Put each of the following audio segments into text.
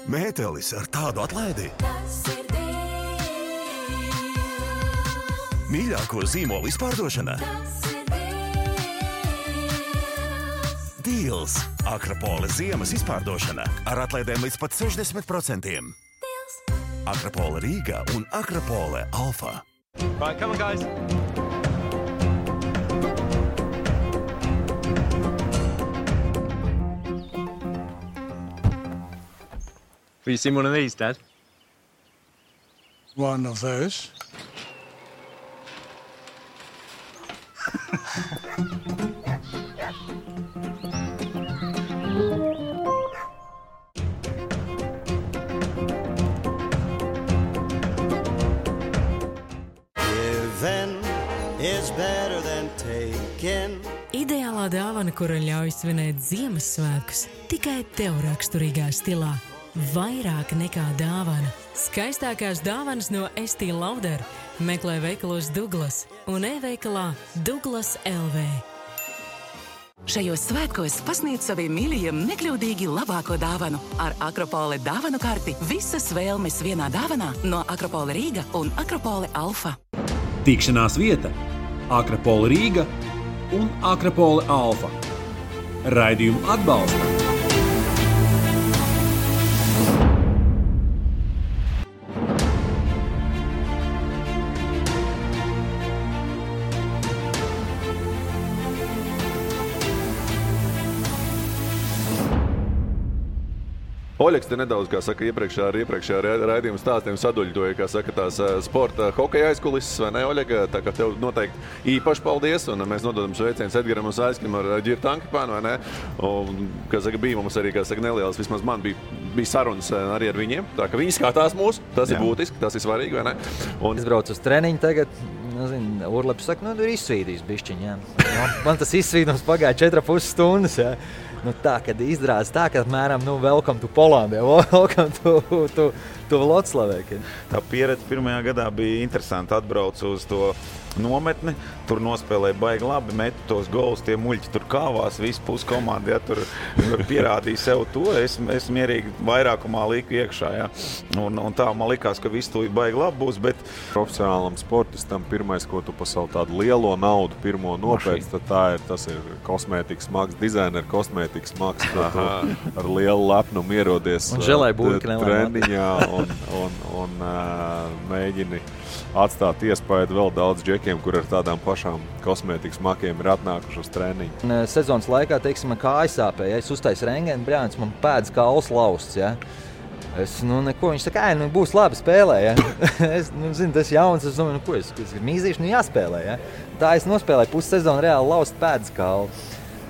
Mētelis ar tādu atlaidi. Mīļāko zīmolu izpārdošana. Deals. Akropole ziemas izpārdošana ar atlaidēm līdz pat 60%. Akropole Rīga un Akropole Alfa. Right, come on, guys. Have you seen one of these, Dad? One of those. Is better than taken. Ideālā dāvana, kura ļauj svinēt Ziemassvētkus, tikai tev raksturīgā stilā. Vairāk nekā dāvana. Skaistākās dāvanas no Estee Lauder meklē veikalos Douglas un e-veikalā Douglas LV. Šajos svētkos pasniedz saviem mīļajiem nekļūdīgi labāko dāvanu. Ar Akropole dāvanu karti visas vēlmes vienā dāvanā no Akropole Rīga un Akropole Alfa. Tikšanās vieta Akropole Rīga un Akropole Alfa. Raidījumu atbalsta. Oļeks te nedaudz, kā saka, iepriekšējā raidījuma stāstiem saduļtoja, kā saka, tās sporta hokeja aizkulises, vai ne, Oļega? Tā kā tev noteikti īpaši paldies, un mēs nododam sveicienus Edgaram un Saiskim ar Ģirtu Ankipānu, vai ne? Un, kā saka, bija mums arī, kā saka, nelielas, vismaz man bija sarunas arī ar viņiem, tā ka viņi skatās mūs, tas ir būtiski, tas ir svarīgi, vai ne? Un... Es braucu uz treniņu tagad, nezinu, Urleps saka, ir izsvīdījis bišķiņ, jā. Man tas izsvīdums pagāja 4,5 stundas, jā. Tā, kad izrādās tā, ka apmēram, welcome to Poland, welcome to Vloclavē. Tā pieredze pirmajā gadā bija interesanti. Atbraucu uz to nometni, tur nospēlēja baigi labi, metu tos golus, tie muļķi tur kāvās, visi puskomandi, ja, tur pierādīja sev to. Es mierīgi vairākumā liku iekšā, ja. Un tā man likās, ka viss tūlīt baigi labi būs, bet profesionālam sportistam pirmais, ko tu pa savu tādu lielo naudu pirmo nopēc, tad tas ir kosmētikas maks, dizaineru kosmētikas maks, ar lielu lepnumu ierodies treniņā un mēģini atstāt iespēju vēl daudz džekiem, kur ar tādām pašām kosmētikas makiem ir atnākuši uz treniņu. Sezonas laikā, teiksim, man kāja sāpēja, es uztaisu rengēnu, brānis, man pēdas kauls lausts, ja. Es, neko, viņš saka, būs labi spēlē, ja. Es, zinu, tas jauns, es domāju, ko es mīzīšu, jāspēlē, ja. Tā es nospēlēju pussezonu reāli laust pēdas kaulu.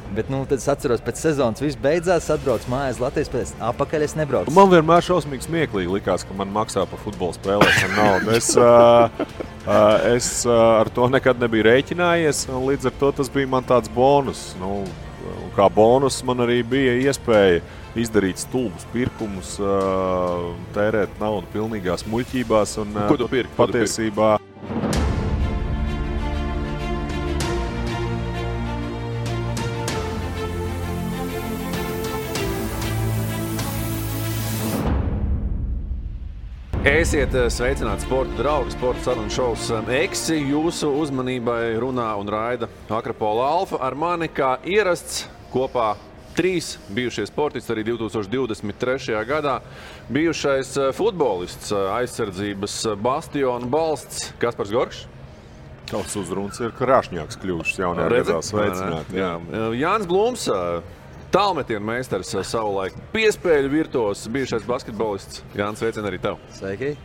Bet, tad es atceros, pēc sezonas viss beidzās, atbrauc mājās Latvijas, pēc apakaļ es nebraucu. Man vienmēr šausmīgi smieklīgi likās, ka man maksā par futbola spēlēšanu naudu. Es ar to nekad nebiju rēķinājies, un līdz ar to tas bija man tāds bonus. Kā bonus man arī bija iespēja izdarīt stulbus pirkumus, tērēt naudu pilnīgās muļķībās un patiesībā. Esiet sveicināti sporta draugi, sporta sarunu šovs Eksi. Jūsu uzmanībai runā un raida Akropole Alfa. Ar mani kā ierasts kopā 3 bijušie sportisti arī 2023. gadā. Bijušais futbolists, aizsardzības bastiona balsts Kaspars Gorkšs. Tavs uzruns ir krāšņāks kļuvušas jaunajā gadā. Sveicināti. Jānis Blūms, tālmetienu meistars savulaik, piespēļu virtuos, bijušais basketbolists. Jānis, sveicien arī tev. Sveiki.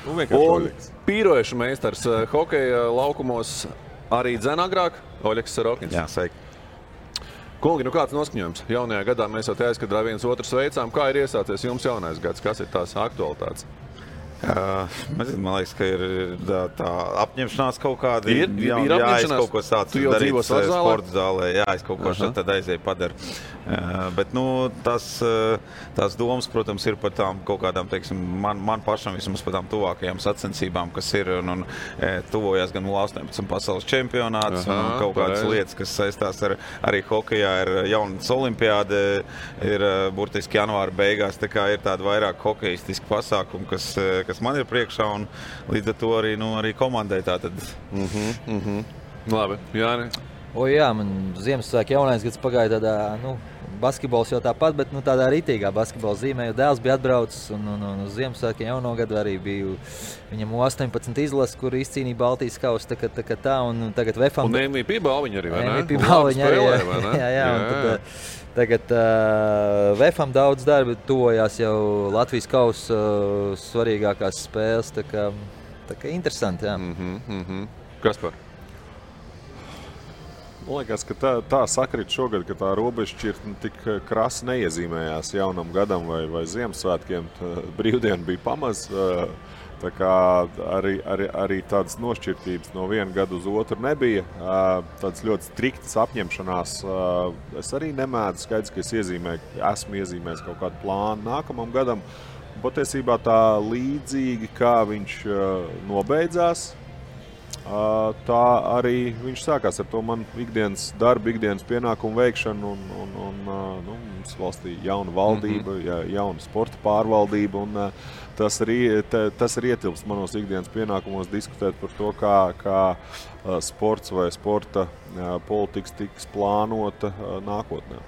Un pīrojušu meistars hokeja laukumos arī dzen agrāk, Oļeks Sarokins. Jā, sveiki. Kungi, kāds noskaņojums? Jaunajā gadā mēs jau te aizkadrā viens otru sveicām. Kā ir iesācies jums jaunais gads? Kas ir tās aktualitātes? Man liekas, ka ir tā apņemšanās kaut kāda. Ir apņemšanās? Es kaut ko sācu darīt sporta zālē. Jā, es kaut ko tad aizēju padaru. Bet, tās domas, protams, ir par tām kaut kādām, teiksim, man pašam vismaz par tām tuvākajām sacensībām, kas ir un tuvojas gan 18 pasaules čempionāts un kaut kādas lietas, kas saistās arī hokejā, ir jaunas olimpiāde, ir burtiski janvāra beigās, tā kā ir tāda vairāk hokejistiski pasākumi, kas man ir priekšā, un līdz ar to arī komandai tātad. Labi, Jāni. Jā, man Ziemassvētku jaunais gads pagāja tādā, basketbols jau tāpat, bet tādā ritīgā basketbola zīmē, jo dēls bija atbraucis, un uz Ziemassvētku jauno gadu arī biju viņam 18 izlases, kur izcīnīja Baltijas kausu, tā, un tagad VFam... Un MVP balviņa arī, vai ne? MVP balviņa arī, jā, un tad... Tagad VFam daudz darba, tuvojās jau Latvijas kausa svarīgākās spēles, tā kā interesanti, jā. Kaspar? Man liekas, ka tā sakrit šogad, ka tā robežšķirtne tik krasi neiezīmējās jaunam gadam vai Ziemassvētkiem. Brīvdiena bija pamaz, tā kā arī tādas nošķirtības no viena gada uz otru nebija. Tādas ļoti striktas apņemšanās. Es arī nemēdzu, skaidrs, ka esmu iezīmējis kaut kādu plānu nākamam gadam. Patiesībā tā līdzīgi, kā viņš nobeidzās, tā arī viņš sākās ar to man ikdienas darbu, ikdienas pienākumu veikšanu un mums valstī jauna valdība, jauna sporta pārvaldība un tas arī ietilpst manos ikdienas pienākumos diskutēt par to, kā sports vai sporta politikas tiks plānota nākotnē.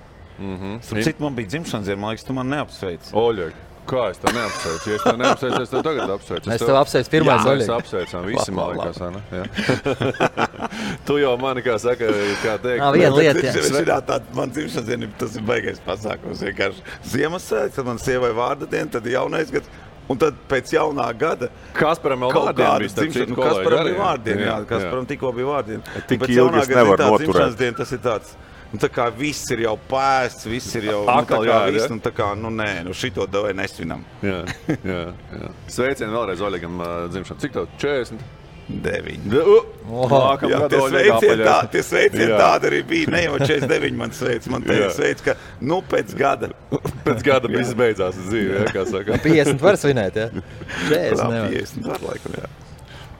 Cik man bija dzimšanas diena, man liekas, tu man neapsveic. Oļeg. Kā es tev neapsveicu? Ja es tev neapsveicu, es tev tagad apsveicu. Es tev apsveicu pirmais, Oļeg. Jā, mēs apsveicām visi, man liekas, ne? Tu jau mani, kā saka, kā teikt. Viena lieta, jā. Man dzimšanas diena, tas ir baigais pasākums. Vienkārši Ziemassvētku, tad man sievai vārda diena, tad jaunais gads. Un tad pēc jaunā gada Kasparam vēl vārdiena bija, starp citu kolēģi. Kasparam bija vārdiena, jā. Kasparam tikko bija vārdiena. Tik ilgi es nevaru noturēt. Tas ir tāds. Tā kā viss ir jau pēsts, viss ir jau šito davai nesvinam. Jā. Sveicieni vēlreiz Oļegam dzimšanu. Cik tev? 40? 9. Tie sveicieni tādi arī bija. Ne jau 49 man sveic. Man sveic, ka pēc gada. Pēc gada viss beidzās dzīve, kā saka. 50 var svinēt, jā? 40 nevar. 50 var laikam, jā.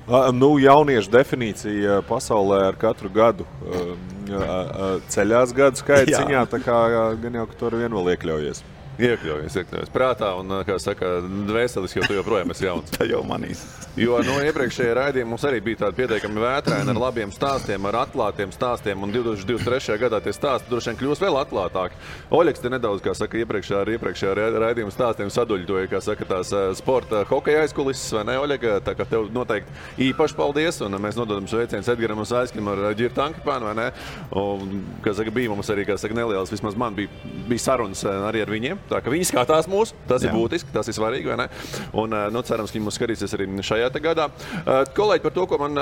Jauniešu definīcija pasaulē ar katru gadu ceļās gadu skaita ziņā, tā kā gan jau, ka tu ar vienu vēl iekļaujies. Iekļaujies prātā un, kā saka, dvēselis, jo tu joprojām esi jauns. Tā jau manīs. Jo iepriekšējā raidījumā mums arī bija tādi pietiekami vētraini ar labiem stāstiem, ar atklātiem stāstiem, un 2023. gadā tie stāsti droši vien kļūs vēl atklātāki. Oļegs te nedaudz, kā saka, iepriekšējā raidījuma stāstiem saduļtoja, kā saka, tās sporta hokeja aizkulises, vai ne, Oļeg? Tā kā tev noteikti īpaši paldies, un mēs nododam sveicienus Edgaram un Saiskim ar Ģirtu Ankipānu, vai ne? Un, kā saka, bija mums arī, kā saka, nelielas, vismaz man bija sarunas arī ar viņiem. Tā ka viņi skatās mūs, tas ir būtiski, tas ir svarīgi, vai ne? Un, cerams, ka viņi mūs skatīsies arī šajā gadā. Kolēģi, par to, ko man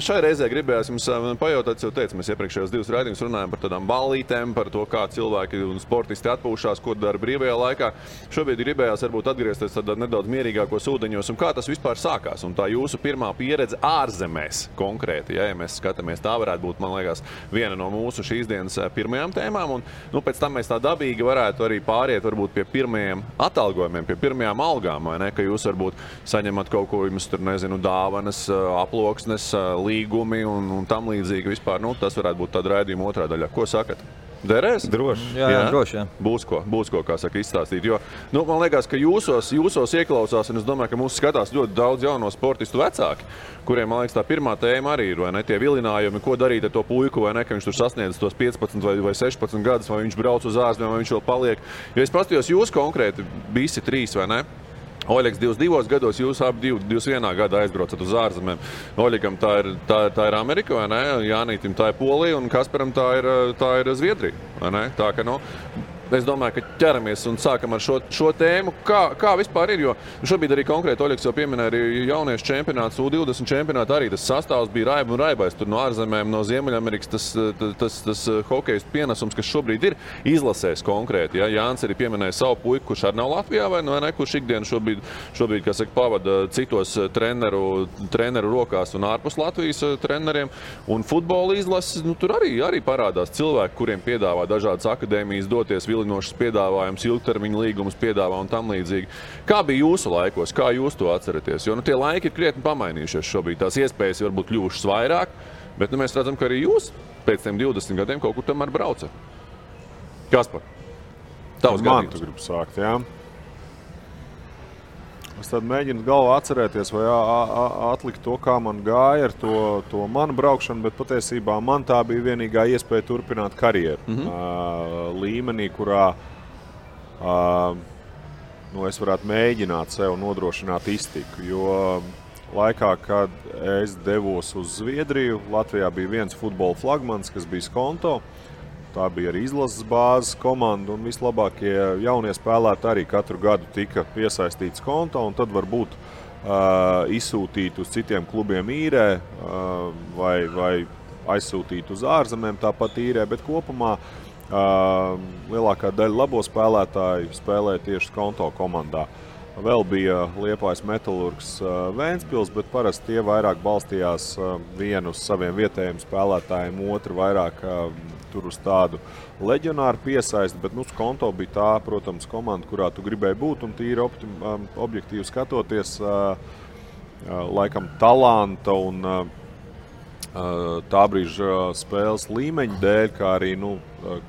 šai reizē gribējās jums pajautāt, jau teicu, mēs iepriekšējos 2 raidījumus runājam par tādām ballītēm, par to, kā cilvēki un sportisti atpūšās, ko dara brīvajā laikā. Šobrīd gribējās varbūt atgriezties tādā nedaudz mierīgākos ūdeņos, un kā tas vispār sākās. Un tā jūsu pirmā pieredze ārzemēs konkrēti, ja mēs skatāmies, tā varētu būt, man liekas, viena no mūsu šīs dienas pirmajām tēmām. Un, pēc tam mēs tā dabīgi varētu arī pāriet varbūt pie pirmajiem atalgojumiem, pie pirmajām algām, vai ne? Ka jūs varbūt saņemat kaut ko, jums tur, nezinu, dāvanas, aploksnes, līgumi un tam līdzīgi vispār. Tas varētu būt tāda raidījuma otrā daļā. Ko sakat? Derēs? Droši. Jā, droši, jā. Būs ko, kā saka, izstāstīt. Jo, man liekas, ka jūsos ieklausās, un es domāju, ka mūs skatās ļoti daudz jauno sportistu vecāki, kuriem, man liekas, tā pirmā tēma arī ir, vai ne, tie vilinājumi, ko darīt ar to puiku, vai ne, ka viņš tur sasniedz tos 15 vai 16 gadus, vai viņš brauc uz ārzemēm, vai viņš vēl paliek. Jo es paskatījos jūs konkrēti, visi 3, vai ne? Oļegs 22 gados, jūs abi 21 gadā aizbraucat uz ārzemēm. Oļegam tā ir Amerika, vai ne? Jānītim tā ir Polija, un Kasparam tā ir Zviedrija, vai ne? Tā ka, es domāju, ka ķeramies un sākam ar šo tēmu. Kā vispār ir? Jo šobrīd arī konkrēti Oļegs jau pieminēja arī jauniešu čempionāts, U20 čempionātu arī tas sastāvs bija raiba un raibais. Tur no ārzemēm, no Ziemeļamerikas tas hokejs pienesums, kas šobrīd ir izlasēs konkrēti. Ja? Jānis arī pieminēja savu puiku, kurš arī nav Latvijā vai ne, kurš ikdienu šobrīd kā saka, pavada citos treneru rokās un ārpus Latvijas treneriem. Un futbola izlases, tur arī parādās cilvēki, kuriem piedāvā dažādas akadēmijas doties, vilinošas piedāvājums, ilgtermiņa līgumus piedāvā un tam līdzīgi. Kā bija jūsu laikos? Kā jūs to atceraties? Jo tie laiki ir krietni pamainījušies šobrīd. Tās iespējas varbūt kļuvušas vairāk, bet mēs redzam, ka arī jūs pēc tiem 20 gadiem kaut kur tomēr braucat. Kaspar, tavs gadījums. Man tu gribu sākt, jā. Es tad mēģinu galvā atcerēties vai atlikt to, kā man gāja ar to manu braukšanu, bet patiesībā man tā bija vienīgā iespēja turpināt karjeru līmenī, kurā es varētu mēģināt sev nodrošināt iztiku. Jo laikā, kad es devos uz Zviedriju, Latvijā bija viens futbola flagmans, kas bija Skonto. Tā bija arī izlases bāzes komanda, un vislabākie jaunie spēlētāji arī katru gadu tika piesaistīti Skonto, un tad varbūt izsūtīt uz citiem klubiem īrē vai aizsūtīt uz ārzemēm tāpat īrē, bet kopumā lielākā daļa labo spēlētāju spēlēja tieši Skonto komandā. Vēl bija Liepājas Metalurgs Vēnspils, bet parasti tie vairāk balstījās vienu uz saviem vietējiem spēlētājiem, otru vairāk tur uz tādu leģionāru piesaisti, bet Skonto bija tā, protams, komanda, kurā tu gribēji būt, un tīri objektīvi skatoties, laikam talanta un tā brīža spēles līmeņa dēļ, kā arī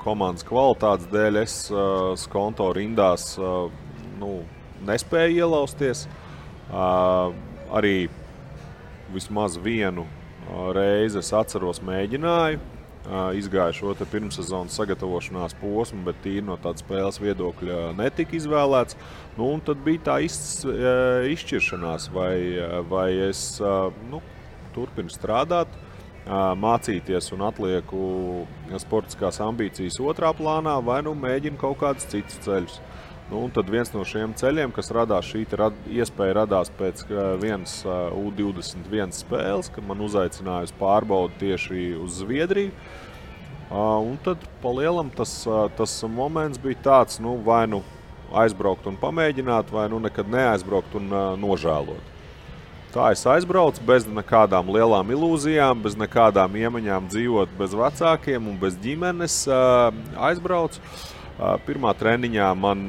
komandas kvalitātes dēļ, es Skonto rindās nespēju ielausties. Arī vismaz vienu reizi es atceros mēģināju. Izgāju šo pirmssezonas sagatavošanās posmu, bet tīri no tāda spēles viedokļa netika izvēlēts. Un tad bija tā izšķiršanās, vai es turpinu strādāt, mācīties un atlieku sportiskās ambīcijas otrā plānā, vai mēģinu kaut kādus citus ceļus. Un tad viens no šiem ceļiem, kas radās, šī iespēja radās pēc vienas U21 spēles, kad man uzaicināja uz pārbaudi tieši uz Zviedriju. Un tad pa lielam tas moments bija tāds, vai aizbraukt un pamēģināt, vai nekad neaizbraukt un nožēlot. Tā es aizbraucu bez nekādām lielām ilūzijām, bez nekādām iemaņām dzīvot bez vecākiem un bez ģimenes. Aizbraucu. Pirmā treniņā man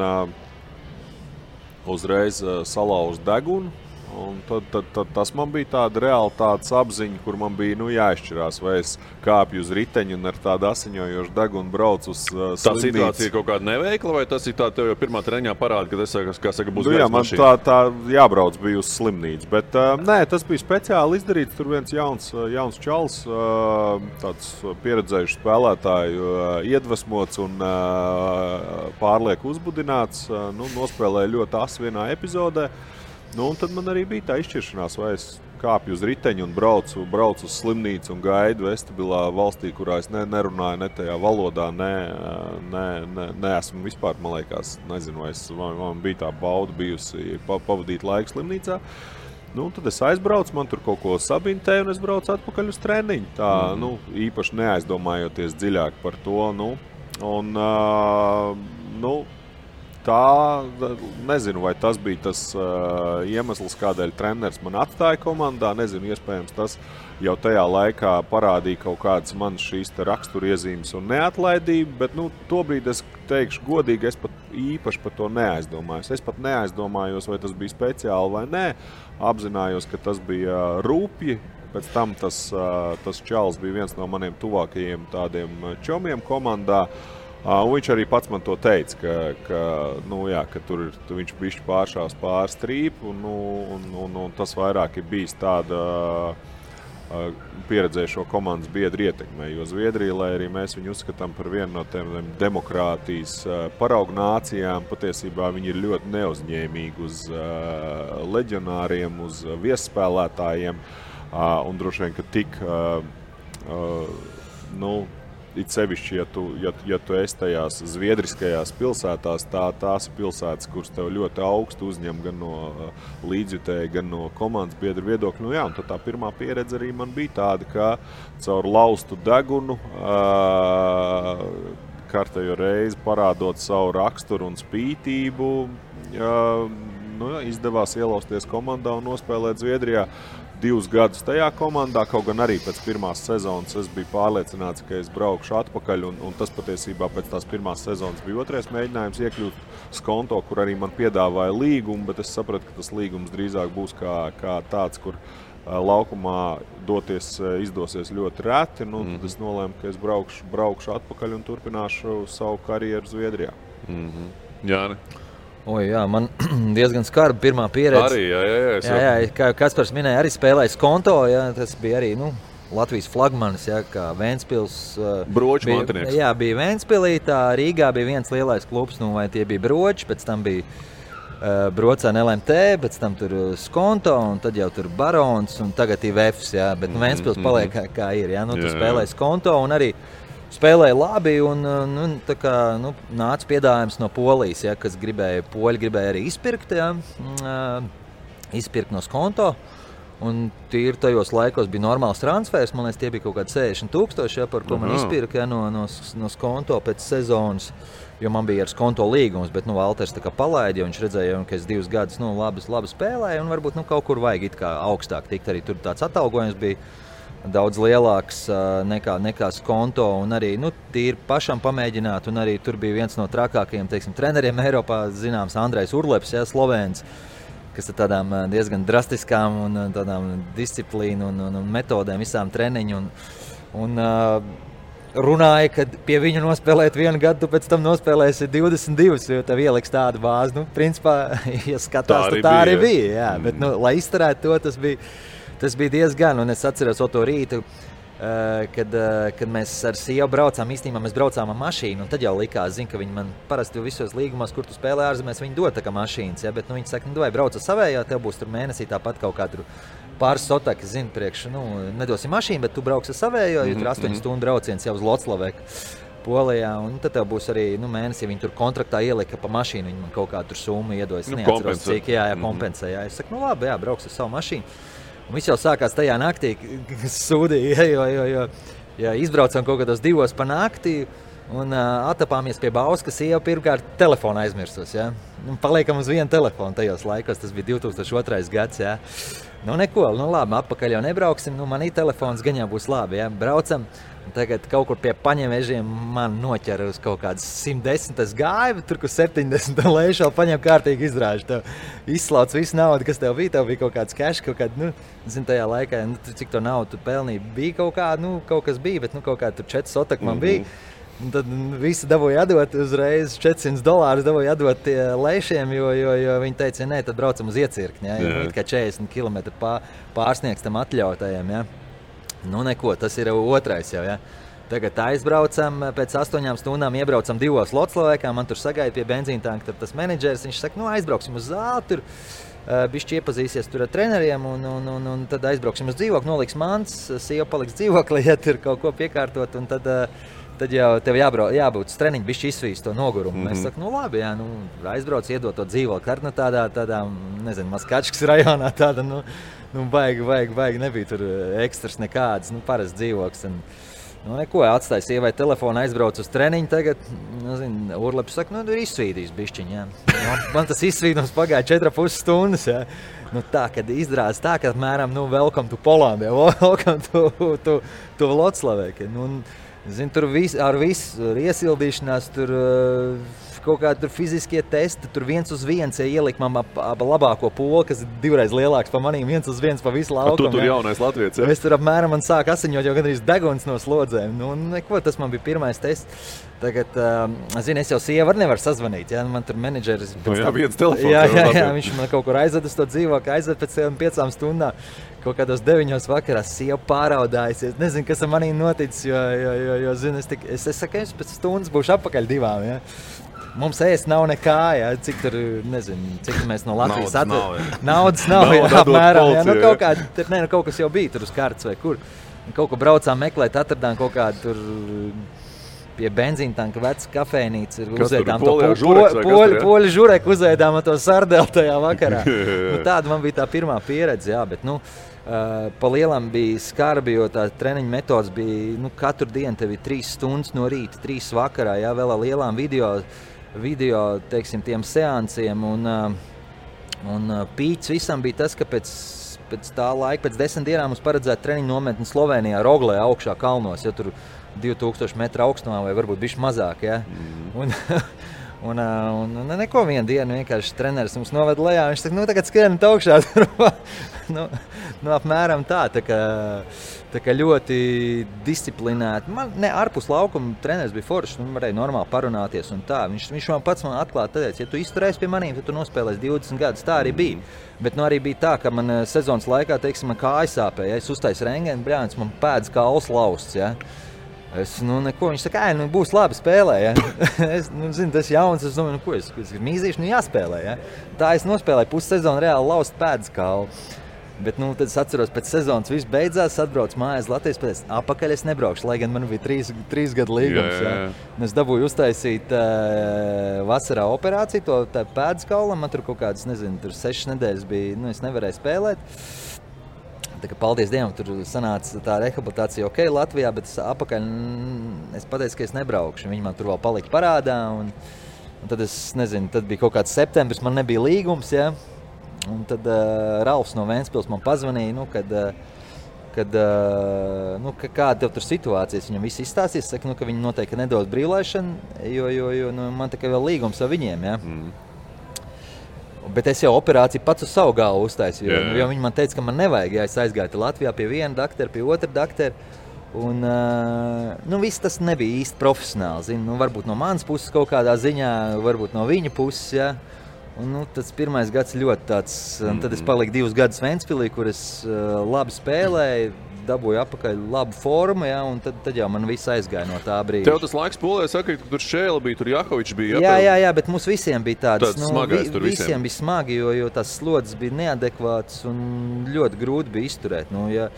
uzreiz salauza degunu, un tad tas man bija tāda realitātes apziņa, kur man bija jāizšķirās, vai es kāpju uz riteņu un ar tādu asiņojošu degunu braucu uz slimnīcu. Tā situācija ir kaut kāda neveikla, vai tas ir tā tev jau pirmā treniņā parāda, kad es, kā saka, būs gairs mašīna? Man tā jābrauc bija uz slimnīcu, bet nē, tas bija speciāli izdarīts. Tur viens jauns čals, tāds pieredzējušs spēlētāju, iedvesmots un pārlieku uzbudināts, nospēlēja ļoti asi vienā epizodē. Un tad man arī bija tā izšķiršanās, vai es kāpju uz riteņu un braucu uz slimnīcu un gaidu vestibilā valstī, kurā es nerunāju ne tajā valodā, neesmu vispār, man liekas, nezinu, vai man bija tā bauda bijusi pavadīt laiku slimnīcā. Tad es aizbraucu, man tur kaut ko sabintēju un es braucu atpakaļ uz treniņu. Tā, īpaši neaizdomājoties dziļāk par to. Tā, nezinu, vai tas bija tas iemesls, kādēļ treneris man atstāja komandā. Nezinu, iespējams, tas jau tajā laikā parādīja kaut kādas manas šīs raksturiezīmes un neatlaidību, bet tobrīd es teikšu godīgi, es pat īpaši par to neaizdomājos. Es pat neaizdomājos, vai tas bija speciāli vai nē. Apzinājos, ka tas bija rūpji. Pēc tam tas čalis bija viens no maniem tuvākajiem tādiem čomiem komandā. Viņš arī pats man to teica, ka tur viņš bišķi pāršās pār strīpu, un tas vairāk ir bijis tāda pieredzējušo komandas biedru ietekmē, jo Zviedrija, lai arī mēs viņu uzskatām par vienu no tiem demokrātijas paraugu nācijām, patiesībā viņi ir ļoti neuzņēmīgi uz leģionāriem, uz viesspēlētājiem, un droši vien, ka tik it sevišķi, ja tu esi tajās zviedriskajās pilsētās, tās ir pilsētas, kuras tev ļoti augstu uzņem gan no līdzjutēja, gan no komandas biedru viedokļu. Un tad tā pirmā pieredze arī man bija tāda, ka caur laustu degunu kārtējo reizi parādot savu raksturu un spītību, izdevās ielausties komandā un nospēlēt Zviedrijā 2 gadus tajā komandā, kaut gan arī pēc pirmās sezonas es biju pārliecināts, ka es braukšu atpakaļ, un tas patiesībā pēc tās pirmās sezonas bija otrais mēģinājums iekļūt Skonto, kur arī man piedāvāja līgumu, bet es sapratu, ka tas līgums drīzāk būs kā tāds, kur laukumā doties izdosies ļoti reti, tad es nolēmu, ka es braukšu atpakaļ un turpināšu savu karjeru Zviedrijā. Jāni? Jā, man diezgan skarba pirmā pieredze. Arī, jā, kā Kaspars minēja, arī spēlēja Skonto, tas bija arī, Latvijas flagmanis, kā Ventspils. Broču mantinieks. Jā, bija Ventspilī, Rīgā bija viens lielais klubs, vai tie bija Broči, pēc tam bija Brocēna LMT, pēc tam tur Skonto, un tad jau tur Barons, un tagad ir Vefs, bet Ventspils paliek kā ir, tu spēlēji Skonto, un arī spēlēja labi, un nāca piedāvājums no Polijas, kas poļi gribēja arī izpirkt, izpirkt no Skonto. Un tīri tajos laikos bija normāls transfers, man liekas, tie bija kaut kādi 60,000, par ko man izpirka no Skonto pēc sezonas, jo man bija ar Skonto līgums, bet Valters tā kā palaida, jo viņš redzēja, ka es 2 gadus labi spēlēju, un varbūt kaut kur vajag it kā augstāk tikt, arī tur tāds atalgojums bija daudz lielāks nekā Skonto, un arī tīri pašam pamēģināt, un arī tur bija viens no trakākajiem, treneriem Eiropā, zināms, Andrejs Urleps, Slovēns, kas ar tādām diezgan drastiskām un tādām disciplīnu un metodēm visām treniņu, un runāja, ka pie viņu nospēlēt 1 gadu, tu pēc tam nospēlēsi 22, jo tev ieliks tādu bāzi, principā, ja skatās, tā arī bija, jā, bet, lai izturētu to, tas bija diezgan, un es atceros to rītu, kad mēs ar sievu braucām, īstenībā mēs braucām ar mašīnu, un tad jau likās, ka viņi man parasti visos līgumos, kur tu spēlē ārzemēs, viņi dod tā kā mašīnas, bet viņi saka, vai brauc ar savējā, tev būs tur mēnesī tāpat kaut kā tur pāris sotakas, priekš, nedosim mašīnu, bet tu brauks ar savējā, jo tur 8 stundu brauciens jau uz Loclaveku, Polijā, un tad tev būs arī mēnesī, viņi tur kontraktā ielika pa mašīnu, viņi man kaut kā tur summu iedoja, es neatceros, cik, kompensē, es saku, labi, brauks ar savu mašīnu. Un viss jau sākās tajā naktī, kas sūdīja, jo izbraucām kaut kādos 2 pa nakti un atapāmies pie Bauska, sieva pirmkārt telefonu aizmirsos, paliekam uz vienu telefonu tajos laikos, tas bija 2002. gads, neko, labi, atpakaļ jau nebrauksim, manī telefons gan jau būs labi, braucam. Tagad kaut kur pie Paņemežiem man noķera uz kaut kādas 110. gāju, tur, kur 70. lēšā paņem kārtīgi izrāžu. Tev izslauc visu naudu, kas tev bija kaut kāds cash, kaut kāda, tajā laikā, cik to naudu tu pelnīji, bija kaut kā, kaut kas bija, bet kaut kā tur 4 sotak man bija. Un tad visi dabūja atdot uzreiz $400 dabūja atdot tie lēšiem, jo viņi teica, nē, tad braucam uz iecirkni, kā 40 km pārsniegs tam atļautajiem, neko, tas ir otrais jau, Tagad aizbraucam, pēc 8 stundām iebraucam 2 Loclavekā, man tur sagaida pie benzīntanka tas menedžers, viņš saka, aizbrauksim uz zāli, tur bišķi iepazīsies tur ar treneriem, un tad aizbrauksim uz dzīvokli, noliks mans, sieva paliks dzīvoklī, tur kaut ko piekārtot, un tad jau tev jābūt uz treniņu, bišķi izsvīst to nogurumu. Mēs sakam, labi, aizbrauc, iedot to dzīvokli, tādā, nezinu, Maskačkas rajonā, tāda, baigi, nebija tur ekstras nekādas, parasts dzīvoklis. Neko, atstāja sievai telefonu, aizbrauc uz treniņu tagad, Urleps saka, ir izsvīdījis bišķiņ, Man tas izsvīdums pagāja 4,5 stundas, tā, kad izrādās tā, ka apmēram, welcome to Poland, welcome to Loclaveku. Tur ar visu iesildīšanās, tur kaut kādi tur fiziskie testi, tur 1 uz 1, ielika man labāko poli, kas ir 2 reiz lielāks pa manīm, 1 uz 1 pa visu laukumu. Tu tur jaunais latviets, Es tur apmēram man sāk asiņot jau gandrīz deguns no slodzēm. Neko, tas man bija pirmais tests. Tagad, es jau sievu nevaru sazvanīt, man tur menedžeris... viens telefons. Jā, viņš man kaut kur aizved uz to dzīvokli, aizved pēc 5 stundām. Kaut kādos 9 vakarā sieva pāraudājusies. Nezinu, kas ar manī noticis, jo zinu, es saku, es pēc stundas būšu atpakaļ 2. Mums ēst nav nekā, cik tur, nezinu, cik mēs no Latvijas Naudas nav, apmēram. Kaut kas jau bija tur uz kārtas vai kur. Kaut ko braucām meklēt, atradām kaut kādu tur pie benzīntanka veca kafejnīca ir Kas uzēdām tur, poļu žureks vai kas tur, ja? poļu žureku uzēdām to sardeli tajā vakarā. Tāda man bija tā pirmā pieredze, jā, bet pa lielam bija skarbi, jo tā treniņa metodas bija, katru dienu tev ir 3 stundas no rīta, 3 vakarā, jā, vēl ar lielām video, teiksim, tiem seansiem, un pīķis visam bija tas, ka pēc tā laika, pēc 10 dienām mums paredzēja treniņu nometni Slovenijā, Roglē, augšā kalnos, ja tur 2000 metru augstumā vai varbūt bišķi mazāk, ja. Un neko vienu dienu vienkārši treneris mums noved lejā, viņš saka, tagad skrienat augšā, apmēram tā kā ļoti disciplinēti. Man ārpus laukuma treneris bija foršs, varēja normāli parunāties un tā. Viņš man pats atklāti teica, ja tu izturēsi pie manīm, tad tu nospēlēsi 20 gadus, tā arī bija. Bet arī bija tā, ka man sezonas laikā, teiksim, man kāja sāpēja, es uztaisu rengeni, bļāns, man pēdas kauls lausts, ja. Es, neko, viņš saka, būs labi spēlē, ja. Es, tas jauns, es domāju, ko es mīzīšu, jāspēlē, ja. Tā es nospēlēju pussezonu reāli laust pēdas kaulu. Bet, tad es atceros, pēc sezonas viss beidzās, atbraucu mājās Latvijas, pēc apakaļ es nebraukšu, lai gan man bija 3 gadu līgums, ja. Es dabūju uztaisīt vasarā operāciju, to pēdas kaulam, man tur kaut kādas, 6 nedēļas bija, es nevarēju spēlēt. Tā kā paldies Dievam, tur sanāca tā rehabilitācija ok Latvijā, bet apakaļ es pateicu, ka es nebraukšu. Viņi man tur vēl palika parādā, un tad es nezinu, tad bija kaut kāds septembris, man nebija līgums, ja. Un tad Ralfs no Ventspils man pazvanīja, kāda tev tur situācijas, viņam viss izstāstīs, saka, ka viņi noteikti nedos brīvlaišanu, jo man tikai vēl līgums ar viņiem, ja. Bet es jau operāciju pats uz savu galvu uztaisīju, jo viņi man teica, ka man nevajag, ja es aizgāju Latvijā pie viena doktora, pie otra doktora. Un viss tas nebija īsti profesionāli, varbūt no manas puses kaut kādā ziņā, varbūt no viņa puses, ja. Un tas pirmais gads ļoti tāds, un tad es paliku 2 gadus Ventspilī, kur es labi spēlēju, dabūju apakaļ labu formu, ja, un tad jau man viss aizgāja no tā brīža. Tev tas laiks Polijā saka, ka tur Šēla bija, tur Jahovičs bija. Jā, bet mums visiem bija tāds smagais tur visiem. Visiem bija smagi, jo tās slodzes bija neadekvātas un ļoti grūti bija izturēt. Ja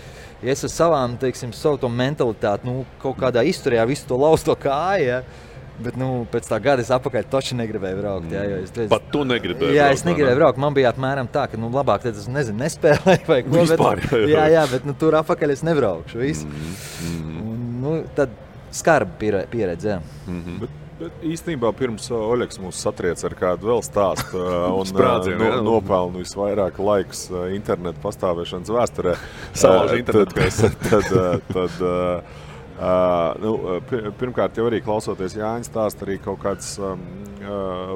es ar savām, teiksim, savu to mentalitāti, kaut kādā izturējā visu to lausto kāju, ja, bet, pēc tā gada es apakaļ toči negribēju braukt. Jā, Pat tu negribēji braukt? Jā, es negribēju braukt. Man bija apmēram tā, ka, labāk tad es, nespēlēju vai ko. Vispār, jā, bet, tur apakaļ es nebraukšu, visu. Tad skarba pieredze, jā. Bet īstenībā pirms Oļegs mūs satriec ar kādu vēl stāstu un nopelnu visvairāk laiks internetu pastāvēšanas vēsturē. Salauž internetu. Pirmkārt, jau arī klausoties Jāņa stāst, arī kaut kāds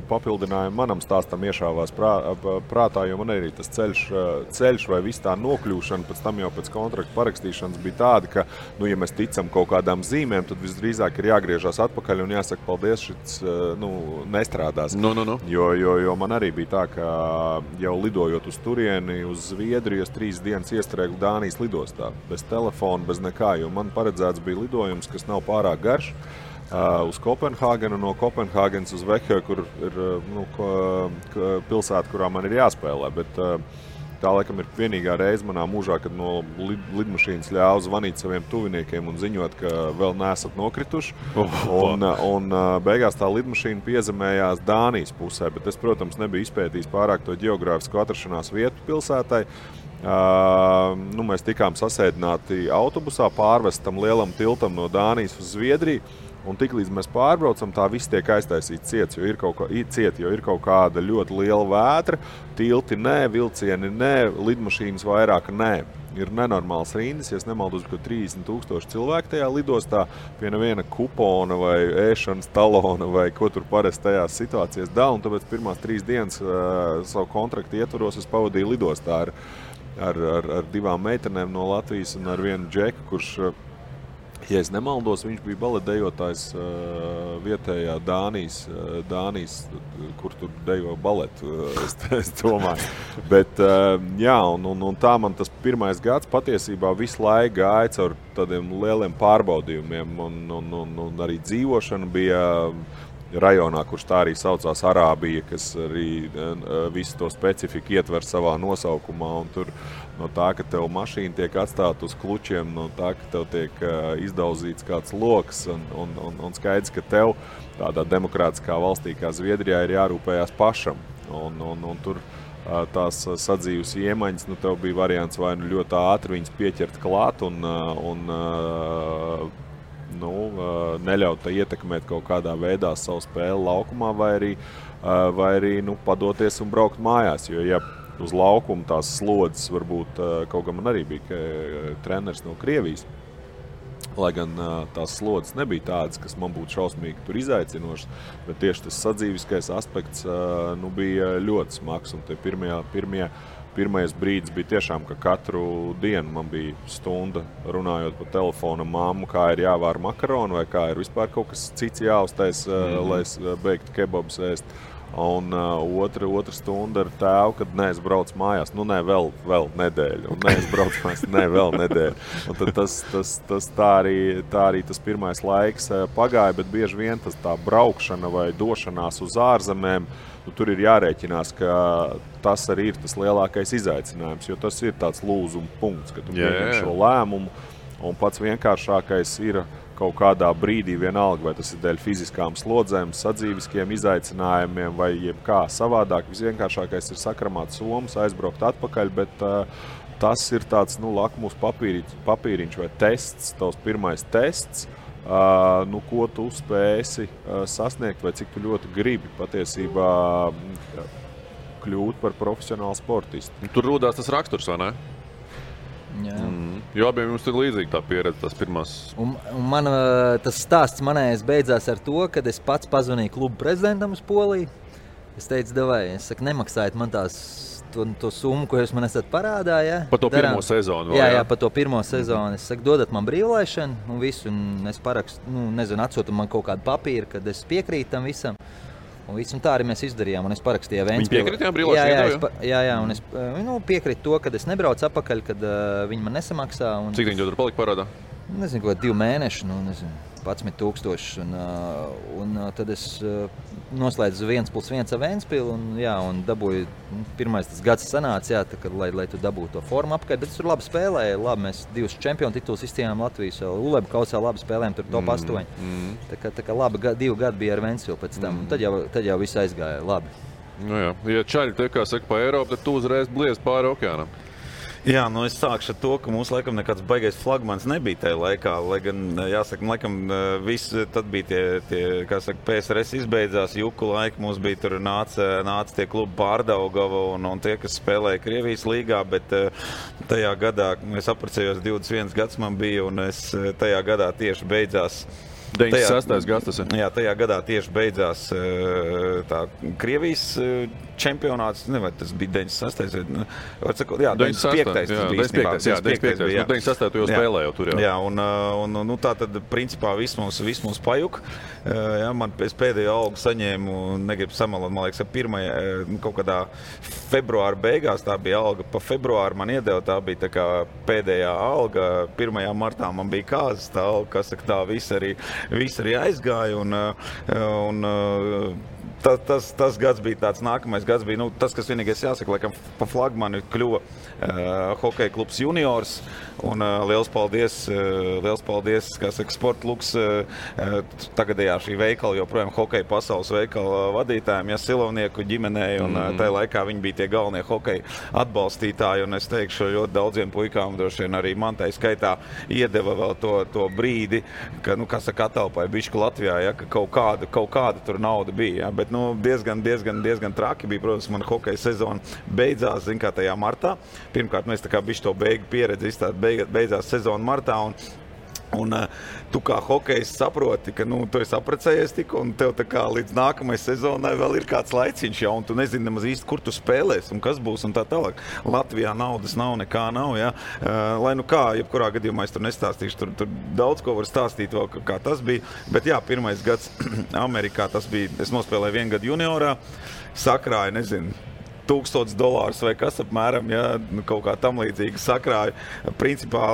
papildinājumi manam stāstam iešāvās prātā, jo man arī tas ceļš vai viss tā nokļūšana pēc tam jau pēc kontrakta parakstīšanas bija tāda, ka, ja mēs ticam kaut kādām zīmēm, tad visdrīzāk ir jāgriežās atpakaļ un jāsaka paldies, šits nestrādās. Jo man arī bija tā, ka jau lidojot uz turieni, uz Zviedriju, es 3 dienas iestrēgu Dānijas lidostā, bez telefona, bez nekā, jo man paredzēts bija lidojums, kas nav pārāk garš, uz Kopenhāgenu, no Kopenhāgenes uz Veheu, kur ir pilsēta, kurā man ir jāspēlē, bet tā laikam ir vienīgā reize manā mūžā, kad no lidmašīnas ļāva zvanīt saviem tuviniekiem un ziņot, ka vēl neesat nokrituši. Un beigās tā lidmašīna piezemējās Dānijas pusē, bet es, protams, nebiju izpētījis pārāk to ģeogrāfisku atrašanās vietu pilsētai. Mēs tikām sasēdināti autobusā, pārvestam lielam tiltam no Dānijas uz Zviedriju, un tiklīdz mēs pārbraucam, tā viss tiek aiztaisīts ciets, jo ir kaut kāda ļoti liela vētra, tilti nē, vilcieni nē, lidmašīnas vairāk nē. Ir nenormāls rindas, ja es nemaldos, ka 30,000 cilvēku tajā lidostā pie neviena kupona vai ēšanas talona vai ko tur parasti tajās situācijās dala, un tāpēc pirmās 3 dienas savu kontraktu ietvaros es pavadīju lidostā ar 2 meitenēm no Latvijas un ar vienu džeku, kurš, ja es nemaldos, viņš bija baletdejotājs vietējā Dānijas, kur tur dejo baletu, es domāju. Bet, jā, un tā man tas pirmais gads patiesībā visu laiku gāja caur tādiem lieliem pārbaudījumiem, un arī dzīvošana bija rajonā, kurš tā arī saucās Arābija, kas arī visu to specifiku ietver savā nosaukumā. Un tur no tā, ka tev mašīna tiek atstāta uz klučiem, no tā, ka tev tiek izdauzīts kāds loks un skaidrs, ka tev tādā demokrātiskā valstī kā Zviedrijā ir jārūpējās pašam. Un tur tās sadzīves iemaņas, tev bija variants vai ļoti ātri viņas pieķert klāt un neļaut ietekmēt kaut kādā veidā savu spēli laukumā, vai arī padoties un braukt mājās. Jo, ja uz laukuma tās slodzes varbūt, kaut gan man arī bija treneris no Krievijas, lai gan tās slodzes nebija tādas, kas man būtu šausmīgi tur izaicinošas, bet tieši tas sadzīviskais aspekts bija ļoti smags. Un pirmais brīdis bija tiešām, ka katru dienu man bija stunda runājot pa telefonu mammu, kā ir jāvār makaronu vai kā ir vispār kaut kas cits jāuztais, lai es beigtu kebabus ēst. Un otra stunda ar tēvu, kad es braucu mājās, vēl nedēļu, un es braucu mājās, vēl nedēļu. Un tad tā arī tas pirmais laiks pagāja, bet bieži vien tā braukšana vai došanās uz ārzemēm, tur ir jārēķinās, ka tas arī ir tas lielākais izaicinājums, jo tas ir tāds lūzuma punkts, ka tu pieņem šo lēmumu, un pats vienkāršākais ir kaut kādā brīdī vienalga, vai tas ir dēļ fiziskām slodzēm, sadzīviskiem izaicinājumiem vai jebkā savādāk. Visvienkāršākais ir sakramāt somas, aizbraukt atpakaļ, bet tas ir tāds lakmus papīriņš vai tests, tavs pirmais tests, ko tu spēsi sasniegt vai cik tu ļoti gribi patiesībā kļūt par profesionālu sportistu. Tur rodās tas raksturs, vai ne? Jā. Jo abiem jums ir līdzīgi tā pieredze, tās pirmās. Un man, tas stāsts manējais beidzās ar to, kad es pats pazvanīju klubu prezidentam uz Poliju. Es teicu, nemaksājiet man to summu, ko jūs man esat parādā. Ja? Pa to pirmo sezonu? Jā, pa to pirmo sezonu. Es saku, dodat man brīvlaišanu un visu, un es parakstu, atsūtu man kaut kādu papīru, kad es piekrītu tam visam. Un tā arī mēs izdarījām, un es parakstīju Ventspili. Viņi piekritījām brīvlaišanu? Jā, un es piekrītu to, kad es nebraucu atpakaļ, kad viņi man nesamaksā. Cik viņi tur palika parādā? Nezinu, kaut 2 mēneši, 11,000. Un tad es noslēdzu 1+1 ar Ventspili, un dabūju, pirmais tas gads sanāca, lai tu dabūtu to formu apkārt, bet es tur labi spēlēju, mēs 2 čempionu tituls izcīnījām Latvijas, Ulebu kausā labi spēlējām, tur top 8. Tā kā labi 2 gadi bija ar Ventspili pēc tam, tad jau viss aizgāja labi. Ja čaļi te, kā saka, pa Eiropu, tad tu uzreiz bliez pāri okeānam. Jā, es sākšu ar to, ka mums laikam nekāds baigais flagmans nebija tajā laikā, lai gan, jāsaka, laikam viss, tad bija tie kā saka, PSRS izbeidzās, juku laika, mums bija tur nāca tie klubi Pārdaugava un tie, kas spēlēja Krievijas līgā, bet tajā gadā, es apprecējos 21 gads man bija, un es tajā gadā tieši beidzās 96. gads tas ir. Jā, tajā gadā tieši beidzās tā Krievijas čempionāts, vai tas bija 96. Jā, 95. Jā, 95. Jā, 96. tu jau spēlēji tur jau. Jā, un tā tad principā viss mums pajuk. Jā, es pēdējo algu saņēmu, negribu samalot, man liekas, kaut kādā februāra beigās, tā bija alga pa februāru man iedeva, tā bija tā kā pēdējā alga, 1. martā man bija kāzas tā alga, kas saka, tā viss arī aizgāja, un tas gads bija tāds, nākamais gads bija, tas, kas vienīgais jāsaka, laikam pa flagmani kļuva hokeja klubs juniors, un liels paldies, kā saka, Sportluks, tagadējā šī veikala, joprojām hokeja pasaules veikala vadītājiem, Silovnieku ģimenei, un tajā laikā viņi bija tie galvenie hokeja atbalstītāji, un es teikšu, ļoti daudziem puikām, droši vien arī man tai skaitā iedeva vēl to brīdi, ka, kā saka, atalpāja bišķi Latvijā, ja, ka kaut kāda tur nauda bija, ja, bet diezgan traki bija, protams, mana hokeja sezona beidzās, kā tajā martā. Pirmkārt, mēs tā kā bišķi to beigu pieredzi izstāt, beidzās sezona martā, un tu kā hokejs saproti, ka tu esi apprecējies tik, un tev tā kā līdz nākamai sezonai vēl ir kāds laiciņš jau, un tu nezini nemaz īsti, kur tu spēlēs, un kas būs, un tā tālāk. Latvijā naudas nav, nekā nav, ja. Lai kā, jebkurā gadījumā es tur nestāstīšu, tur daudz ko var stāstīt vēl, kā tas bija, bet jā, pirmais gads Amerikā tas bija, es nospēlēju 1 gadu juniorā, sakrāju, nezinu, $1000 vai kas apmēram, ja, kaut kā tam līdzīgi sakrāju. Principā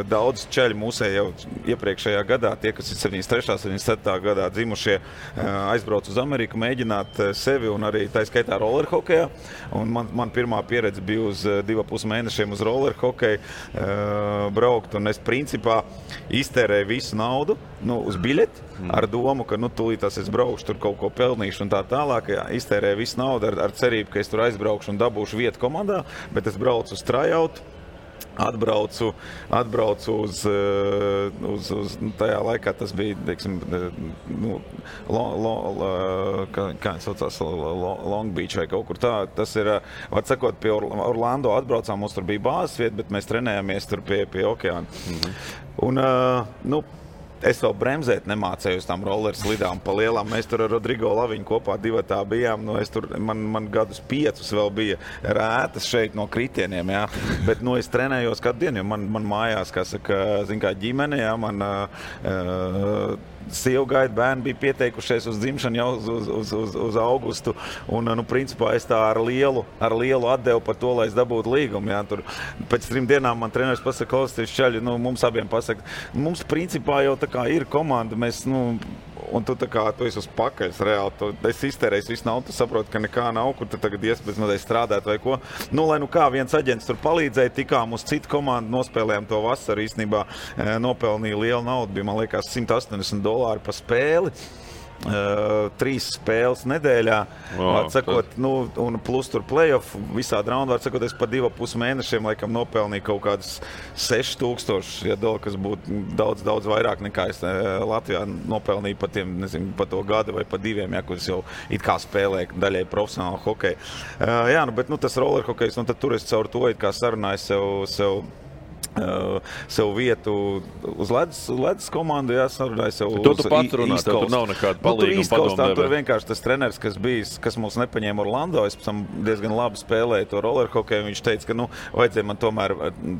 daudz ceļu mūsē jau iepriekšējā gadā, tie, kas ir 73. 77. gadā dzimušie, aizbrauc uz Ameriku, mēģināt sevi un arī tā skaitā rollerhokejā. Un man pirmā pieredze bija uz 2,5 mēnešiem uz rollerhokeju braukt, un es principā iztērēju visu naudu uz biļeti, ar domu, ka tūlītās es braukšu, tur kaut ko pelnīšu un tā tālāk. Jā, iztērēju visu naudu ar cerību, ka es tur aizbraukšu un dabūšu vietu komandā, bet es braucu uz tryout, atbraucu uz tajā laikā tas bija, teiksim, kā saucās, Long Beach vai kaut kur tā. Tas ir, var sakot, pie Orlando atbraucām, mums tur bija bāzes vieta, bet mēs trenējāmies tur pie okeāna. Un, es vēl bremzēt nemācēju uz tām roller slidām pa lielām. Mēs tur ar Rodrigo Laviņu kopā divatā bijām. Man gadus 5 vēl bija rētas šeit no kritieniem, jā. Bet, es trenējos kādu dienu, jo man mājās, kā saka, zin kā ģimene, jā, man sievu gaida, bērni bija pieteikušies uz dzimšanu jau uz augustu. Un, principā, es tā ar lielu atdevu par to, lai es dabūtu līgumu, jā. Tur pēc 3 dienām man treneris pasaka, klausieties, čaļi, mums abiem pasaka, mums principā jau tā kā ir komanda, mēs, un tu tā kā, tu esi uz pakaļs reāli, es iztērēju visu naudu, tu saproti, ka nekā nav, kur tu tagad iespēc strādāt vai ko. Lai kā viens aģents tur palīdzēja, tikām uz citu komandu, nospēlējām to vasaru, īstenībā nopelnīja lielu naudu, bija, man liekas, $180 pa spēli. 3 spēles nedēļā, atsakot, un plus tur play-off, visādi raundi, atsakot, es pa 2,5 mēnešiem, laikam, nopelnīju kaut kādus $6,000, kas būtu daudz vairāk nekā es Latvijā nopelnīju pa tiem, nezinu, pa to gadu vai pa 2, ja, kur es jau it kā spēlēju daļai profesionālu hokeju. Jā, bet, tas rollerhokejs, tad tur es caur to, it kā sarunāju sev vietu uz ledus komandu, jāsarunāja sev uz tu pats runā, tur nav nekāda palīga un padomē. Tur vienkārši tas treneris, kas mūs nepaņēma Orlando, es pēc tam diezgan labi spēlēju to rollerhokeju, viņš teica, ka, vajadzēja man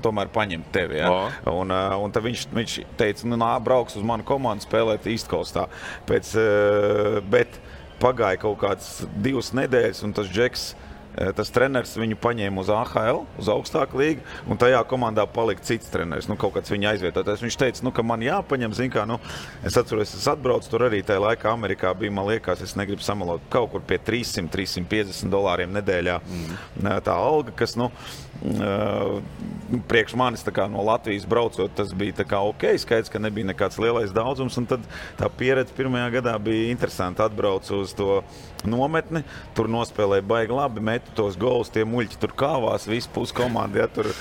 tomēr paņemt tevi, jā. Un tad viņš teica, brauks uz manu komandu spēlēt East Coastā. Bet pagāja kaut kāds 2 nedēļas, un tas Džeks, tas treneris viņu paņēma uz AHL, uz augstāku līgu, un tajā komandā palika cits treneris, kaut kāds viņa aizvietotais. Viņš teica, ka man jāpaņem, zin kā, es atceros, es atbraucu tur arī tajā laikā Amerikā bija, man liekas, es negribu samalot, kaut kur pie $300–350 nedēļā tā alga, kas, priekš manis tā kā no Latvijas braucot, tas bija tā kā ok, skaidrs, ka nebija nekāds lielais daudzums, un tad tā pieredze pirmajā gadā bija interesanti. Atbraucu uz to nometni, tur nospēlēja baigi labi, metu tos golus, tie muļķi tur kāvās, visu pusi komandi, ja, tur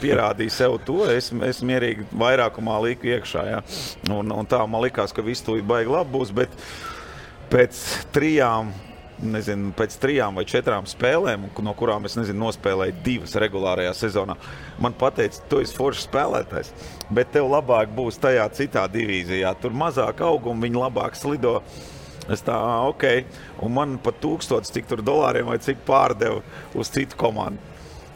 pierādīja sev to, es mierīgi vairākumā liku iekšā, ja. Un tā man likās, ka viss tūlīt baigi labi būs, bet pēc 3 vai 4 spēlēm, no kurām es nospēlēju 2 regulārajā sezonā, man pateica, tu esi foršs spēlētājs, bet tev labāk būs tajā citā divīzijā, tur mazāk auguma, viņi labāk slido. Es tā, ok, un man pat $1000 cik tur dolāriem vai cik pārdevu uz citu komandu.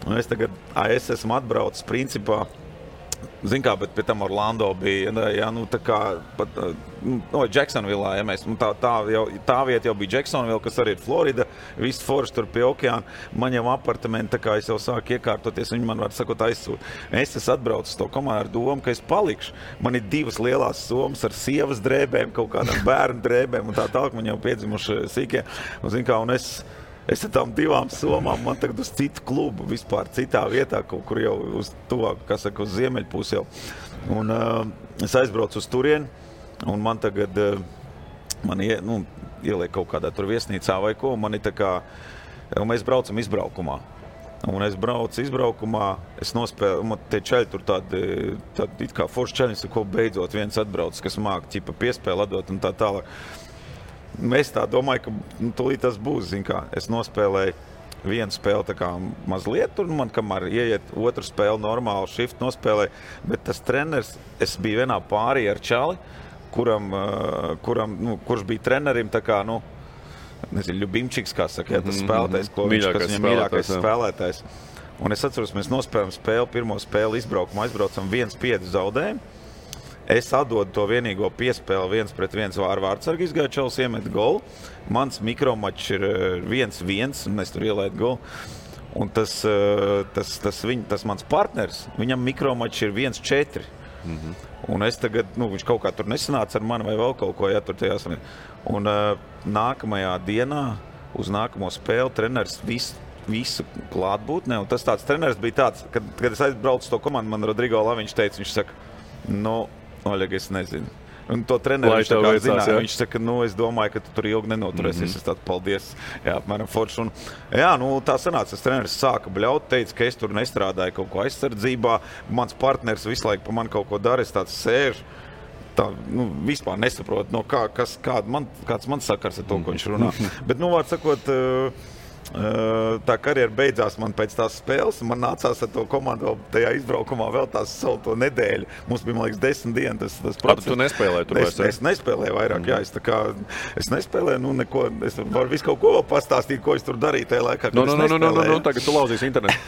Un es tagad, es esmu atbraucis principā, zin kā, bet pie tam Orlando bija, jā, tā kā, pat, Jacksonvillā, ja mēs, tā vieta jau bija Jacksonville, kas arī ir Florida, viss forši tur pie okeāna, man jau apartamenti, tā kā es jau sāku iekārtoties, viņi man var sakot aizsūt. Es atbraucu to komandu ar domu, ka es palikšu. Man ir 2 lielās somas ar sievas drēbēm, kaut kādām bērnu drēbēm, un tā tālāk man jau piedzimuši sīkie, un zin kā, un es ar tām 2 somām, man tagad uz citu klubu, vispār citā vietā, kaut kur jau uz tuvāk, kā saka, uz ziemeļpusi jau. Un es aizbraucu uz turieni, un man tagad, ieliek kaut kādā tur viesnīcā vai ko, man ir tā kā, un mēs braucam izbraukumā. Un es braucu izbraukumā, es nospēlu, man tie čaļi tur tādi it kā forši čaļi, ko beidzot viens atbrauc, kas māk ķipa piespēli atdot un tā tālāk. Es tā domāju, ka tūlīt tas būs, zin kā, es nospēlēju 1 spēli tā kā mazliet, un man kamēr ieiet 2 spēli normāli shift nospēlēju, bet tas treneris, es biju vienā pārī ar čali, kurš bija trenerim tā kā, Ļubimčiks, kā saka, tas spēlētājs, kas viņam mīļākais spēlētājs. Un es atceros, mēs nospēlējam spēli, pirmo spēli izbraukumā, aizbraucam 1-5 zaudējumu. Es atdodu to vienīgo piespēli 1-1 ar vārdsargu izgāju čels iemet golu. Mans mikromačs ir 1-1 un es tur ielaidu golu. Un tas mans partners, viņam mikromačs ir 1-4. Un es tagad, viņš kaut kā tur nesanāca ar mani vai vēl kaut ko, tur tajās. Un nākamajā dienā uz nākamo spēli treneris visu klātbūtnē. Un tas tāds treneris bija tāds, kad es aizbraucu to komandu, man Rodrigo Laviņš teica, viņš saka, Oļeg, es nezinu. Un to treneru viņš tā kā zināja. Viņš saka, es domāju, ka tu tur ilgi nenoturēsies. Es tādu paldies. Jā, apmēram forši. Un, tā sanāca, tas treneris sāka bļaut, teica, ka es tur nestrādāju kaut ko aizsardzībā. Mans partners visu laiku pa mani kaut ko dara, es tāds sēžu. Tā, vispār nesaprotu, kāds man sakars ar to, ko viņš runā. Bet, vārds sakot, tā karjera beidzās man pēc tās spēles, un man nācās ar to komandu vēl tajā izbraukumā vēl tās savu to nedēļu. Mums bija, man liekas, 10 dienas tas process. Tu nespēlēji tur vairs? Es nespēlēju vairāk, jā. Es nespēlēju, neko, es varu visu kaut ko vēl pastāstīt, ko es tur darīju tajā laikā, kad es nespēlēju. Tagad tu lauzīsi internetu.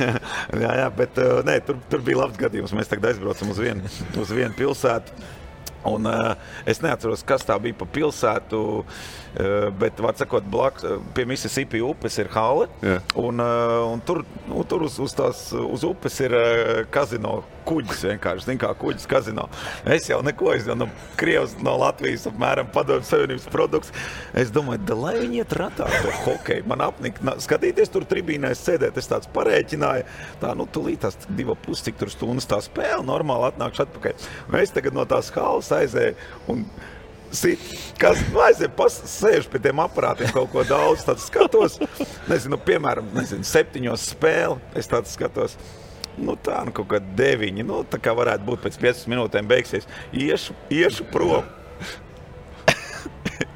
jā, bet tur bija labs gadījums. Mēs tagad aizbraucam uz vienu pilsētu. Un es neatceros, kas tā bija pa pilsētu, bet, var sakot, pie Mississippi upes ir hale, un tur uz upes ir kazino kuģis vienkārši, zin kā kuģis kazino. Es jau neko, Krievs no Latvijas apmēram Padomju Savienības produkts. Es domāju, lai viņi iet ratā to hokeju. Man apnika skatīties tur tribīnēs sēdēt, es tāds parēķināju, tūlīt tās 2,5 cik tur stundas tā spēle, normāli atnākšu atpakaļ. Un es tagad no tās halas aizēju un sēžu pie tiem aparātiem kaut ko daudz, tāds skatos, piemēram, 7 spēli, es tāds skatos. Kaut kā 9, tā kā varētu būt pēc 15 minūtēm beigsies. Iešu prom.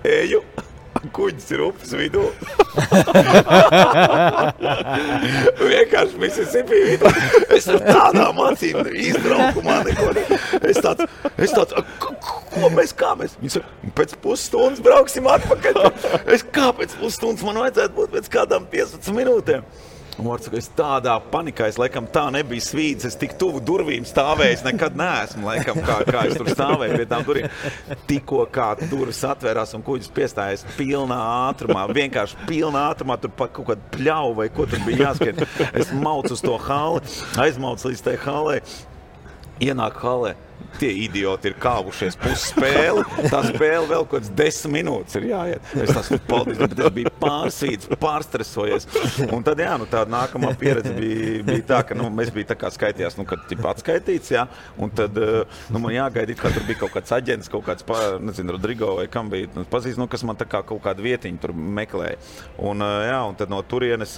Eju, kuģis ir upes vidū. Vienkārši Mississippi vidū. Es ar tādām acīm izbraukumā neko. Es tāds, kā mēs? Viņi saka, pēc pusstundas brauksim atpakaļ. Kā pēc pusstundas man vajadzētu būt pēc kādām 15 minūtēm? Un es tādā panikā, es laikam tā nebija svīdis, es tik tuvu durvīm stāvēju, nekad neesmu, laikam, kā es tur stāvēju pie tām durvīm. Tikko kā durvis atvērās un kuģis piestājies pilnā ātrumā, vienkārši pilnā ātrumā, tur pa kaut kādu pļauju vai ko tur bija jāskrien. Es maucu uz to hali, aizmaucu līdz tai halē, ienāk halē. Tie idioti ir kāvušies pusspēli, tā spēle vēl kaut kāds 10 minūtes ir jāiet. Es tās paldies, bet es biju pārsvīts, pārstresojies. Un tad, tā nākamā pieredze bija tā, ka mēs bija tā kā skaitījās, kad atskaitīts, un tad man jāgaidīt, kā tur bija kaut kāds aģents, kaut kāds, Rodrigo vai kam bija, pazīst, kas man tā kā kaut kādu vietiņu tur meklēja. Un tad no turienes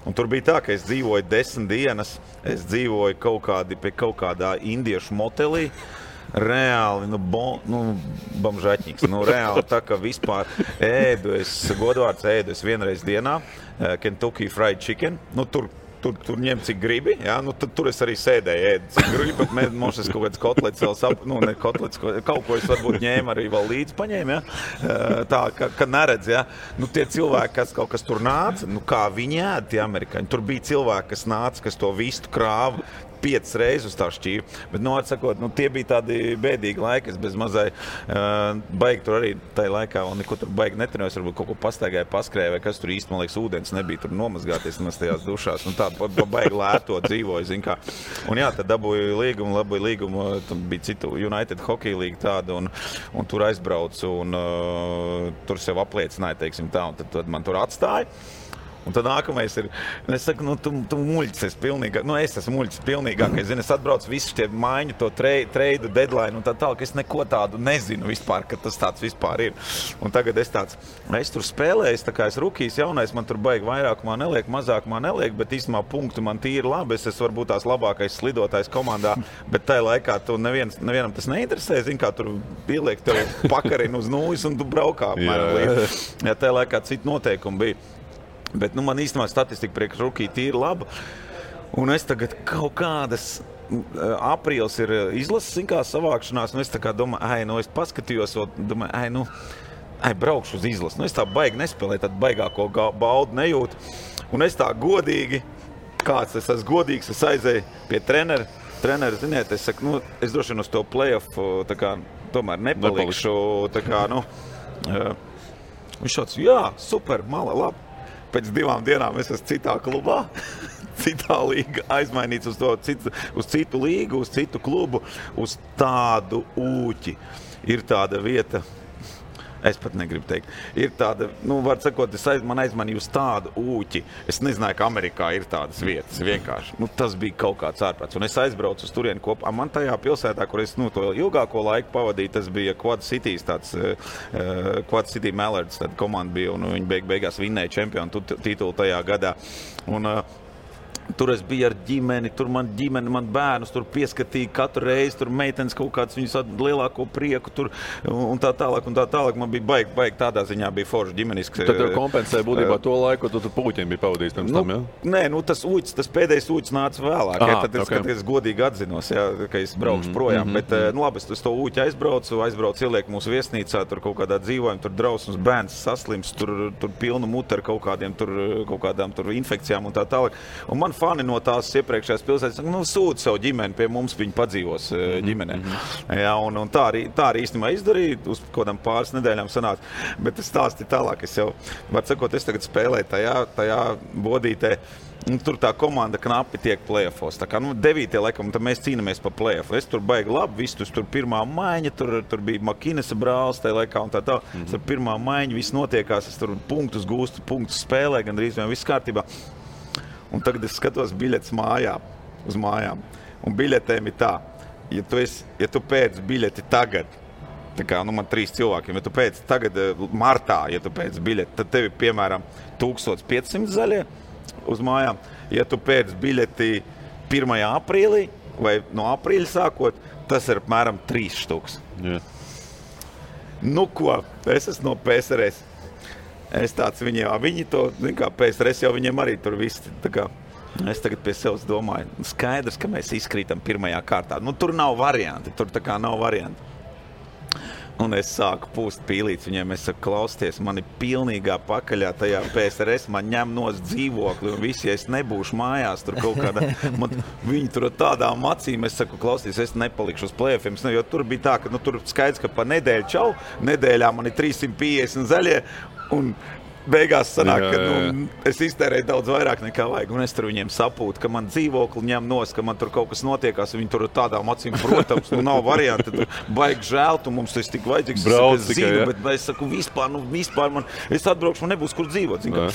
un tur bija tā, ka es dzīvoju 10 dienas, es dzīvoju pie kaut kādā indiešu motelī, reāli, bamžaķņīgs, reāli tā, ka vispār godvārds ēdu es vienreiz dienā, Kentucky Fried Chicken, tur ņem cik gribi, tur es arī sēdēju ēdu cik gribi, bet mums es kaut kāds kotlets vēl kaut ko es varbūt ņēmu arī vēl līdzi paņēmu, tā, ka neredz, tie cilvēki, kas tur nāca, kā viņi ēd tie amerikāņi, tur bija cilvēki, kas nāca, kas to vistu krāva 5 reizes uz tā šķīvi, bet, atsakot, tie bija tādi bēdīgi laiki, es bez mazai baigi tur arī tajā laikā, un neko tur baigi netrenojas, varbūt kaut ko pastaigāja, paskrēja, vai kas tur īsti, man liekas, ūdens nebija tur nomazgāties tajās dušās, tā baigi lēto dzīvoja, zin kā. Un tad dabūju līgumu, bija citu United Hockey League tāda, un tur aizbraucu, un tur sev apliecināja, teiksim tā, un tad man tur atstāja. Un tad nākamais ir, es saku, tu muļķis esi pilnīgāk, es esmu muļķis pilnīgākais, es atbraucu visu tie maiņu, to treidu deadline, un tā tālāk, es neko tādu nezinu vispār, ka tas tāds vispār ir. Un tagad es tur spēlēju, tā kā es rukijs jaunais, man tur baigi vairākumā neliek, mazākumā neliek, bet īstumā punktu man tīri labi, es esmu varbūt tās labākais slidotājs komandā, bet tajā laikā tu nevienam tas neinteresē, zin kā tur pieliek tev pakarinu uz nūjas un tu braukā apmēram līdz. Tajā laikā citu noteikumu bija. Bet man īstenībā statistika priekš rukī tīri laba. Un es tagad kaut kādas aprīlis ir izlases savākšanās, un es tā kā domāju, es paskatījos, domāju, braukšu uz izlases. Es tā baigi nespēlēju, tad baigāko baudu nejūtu. Un es tā godīgi, es esmu godīgs, es aizēju pie trenera, treneri, ziniet, es saku, es droši vien uz to play-off tā kā tomēr nepalikšu. Tā kā, viņš šāds, jā, super, mala, labi. Pēc 2 dienām es esmu citā klubā, citā līga, aizmainīts uz citu līgu, uz citu klubu, uz tādu ūķi. Ir tāda vieta, es pat negribu teikt, ir tāda, var sakot, man aizmanīja uz tādu ūķi. Es nezināju, ka Amerikā ir tādas vietas, vienkārši. Tas bija kaut kāds ārprāts. Un es aizbraucu uz turieni kopā. Man tajā pilsētā, kur es to ilgāko laiku pavadīju, tas bija Quad Cities, Quad City Mallards, tāda komanda bija, un viņi beigās vinnēja čempionu titulu tajā gadā. Un, tur es biju ar ģimeni, tur man bērnus tur pieskatīja katru reizi, tur meitenes kaut kāds viņus lielāko prieku tur un tā tālāk. Man bija baigi tādā ziņā bija forši ģimeniski. Tad tev kompensēja būtībā to laiku, ko tu puķiem bija pavadījis pirms tam, jā? Nē, tas pēdējais ūķis nāca vēlāk. Tad es godīgi atzinos, ka es braukšu projām. Bet labi, es to ūķi aizbraucu, ieliek mūsu viesnīcā, tur kaut kādā dzīvojam, tur drausmas bērns saslims, tur pilnu mutu ar kaut kādām infekcijām un tā tālāk. Un man fani no tās iepriekšējās pilsētas, sūta savu ģimeni pie mums, viņi padzīvos ģimenē. Jā, un tā arī īstenībā izdarīja, uz kādām pāris nedēļām sanāca. Bet es stāstīju tālāk, es jau, var sakot, es tagad spēlēju tajā bodītē. Tur tā komanda knapi tiek play-offos. Tā kā 9. laikam, tad mēs cīnamies pa play-offu. Es tur baigi labi, viss tur pirmā maiņa, tur bija Makinesa brālis tajā laikā un tā. Tur pirmā maiņa, viss notiekās, es tur punktus gūstu, punktus spēlē, gandrīz vien viss kārtībā. Un tagad es skatos biļetes uz mājām. Un biļetēm ir tā, ja tu pēc biļeti tagad, tā kā man 3 cilvēkiem, ja tu pēc tagad martā, ja tu pēc biļeti, tad tev ir piemēram 1500 zaļie uz mājām. Ja tu pēc biļeti 1. aprīlī vai no aprīļa sākot, tas ir apmēram 3 štuks. Yeah. Ko? Es esmu no PSRS. Es tāds viņi to, kā PSRS jau viņiem arī tur viss, tā kā es tagad pie sevis domāju, skaidrs, ka mēs izkrītam 1. kārtā. Tur nav varianti, tur tā kā nav varianti. Un es sāku pūst pīlīts viņiem, es saku, klausties, man ir pilnīgā pakaļā tajā PSRS, man ņem nos dzīvokli un visi, ja es nebūšu mājās, tur kaut kādā, viņi tur ar tādām acīm, es saku, klausties, es nepalikšu uz play-offiem, jo tur bija tā, ka tur skaidrs, ka pa nedēļu čau, nedēļā man ir 350 zaļie, un beigās sanāk, ka es iztērēju daudz vairāk nekā vajag, un es tur viņiem sapūtu, ka man dzīvokli ņem nos, ka man tur kaut kas notiekās, viņi tur tādām acīm, protams, nav varianti, tur baigi žēl, tu mums tas tik vajadzīgs, es zinu, bet es saku, vispār man, es atbraukšu, man nebūs kur dzīvot, zinu.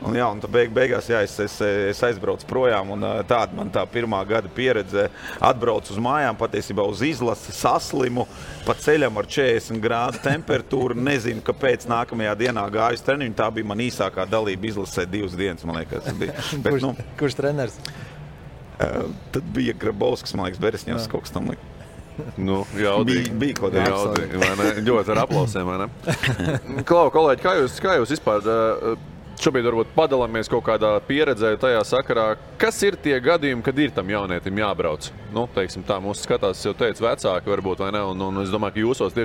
Un tad beigās, es aizbraucu projām, un tāda man tā pirmā gada pieredze atbraucu uz mājām, patiesībā uz izlasi, saslimu, pa ceļam ar 40 grādu temperatūru, nezinu, kāpēc nākamajā dienā gāju uz treniņu, tā bija man īsākā dalība izlasē 2 dienas, man liekas. Bet, kurš treneris? Tad bija Grabovskis, man liekas, Beresņevs kaut kas tam līdz. Jaudīgi. Bija kaut kā jaudīgi, vai ne? Ļoti ar aplausēm, vai ne? Klau, kolēģi, kā jūs vispār šobrīd varbūt padalāmies kaut kādā pieredzē tajā sakarā, kas ir tie gadījumi, kad ir tam jaunietim jābrauc? Teiksim tā, mūsu skatās, jau teicu, vecāki varbūt, vai ne? Un es domāju, ka jūsos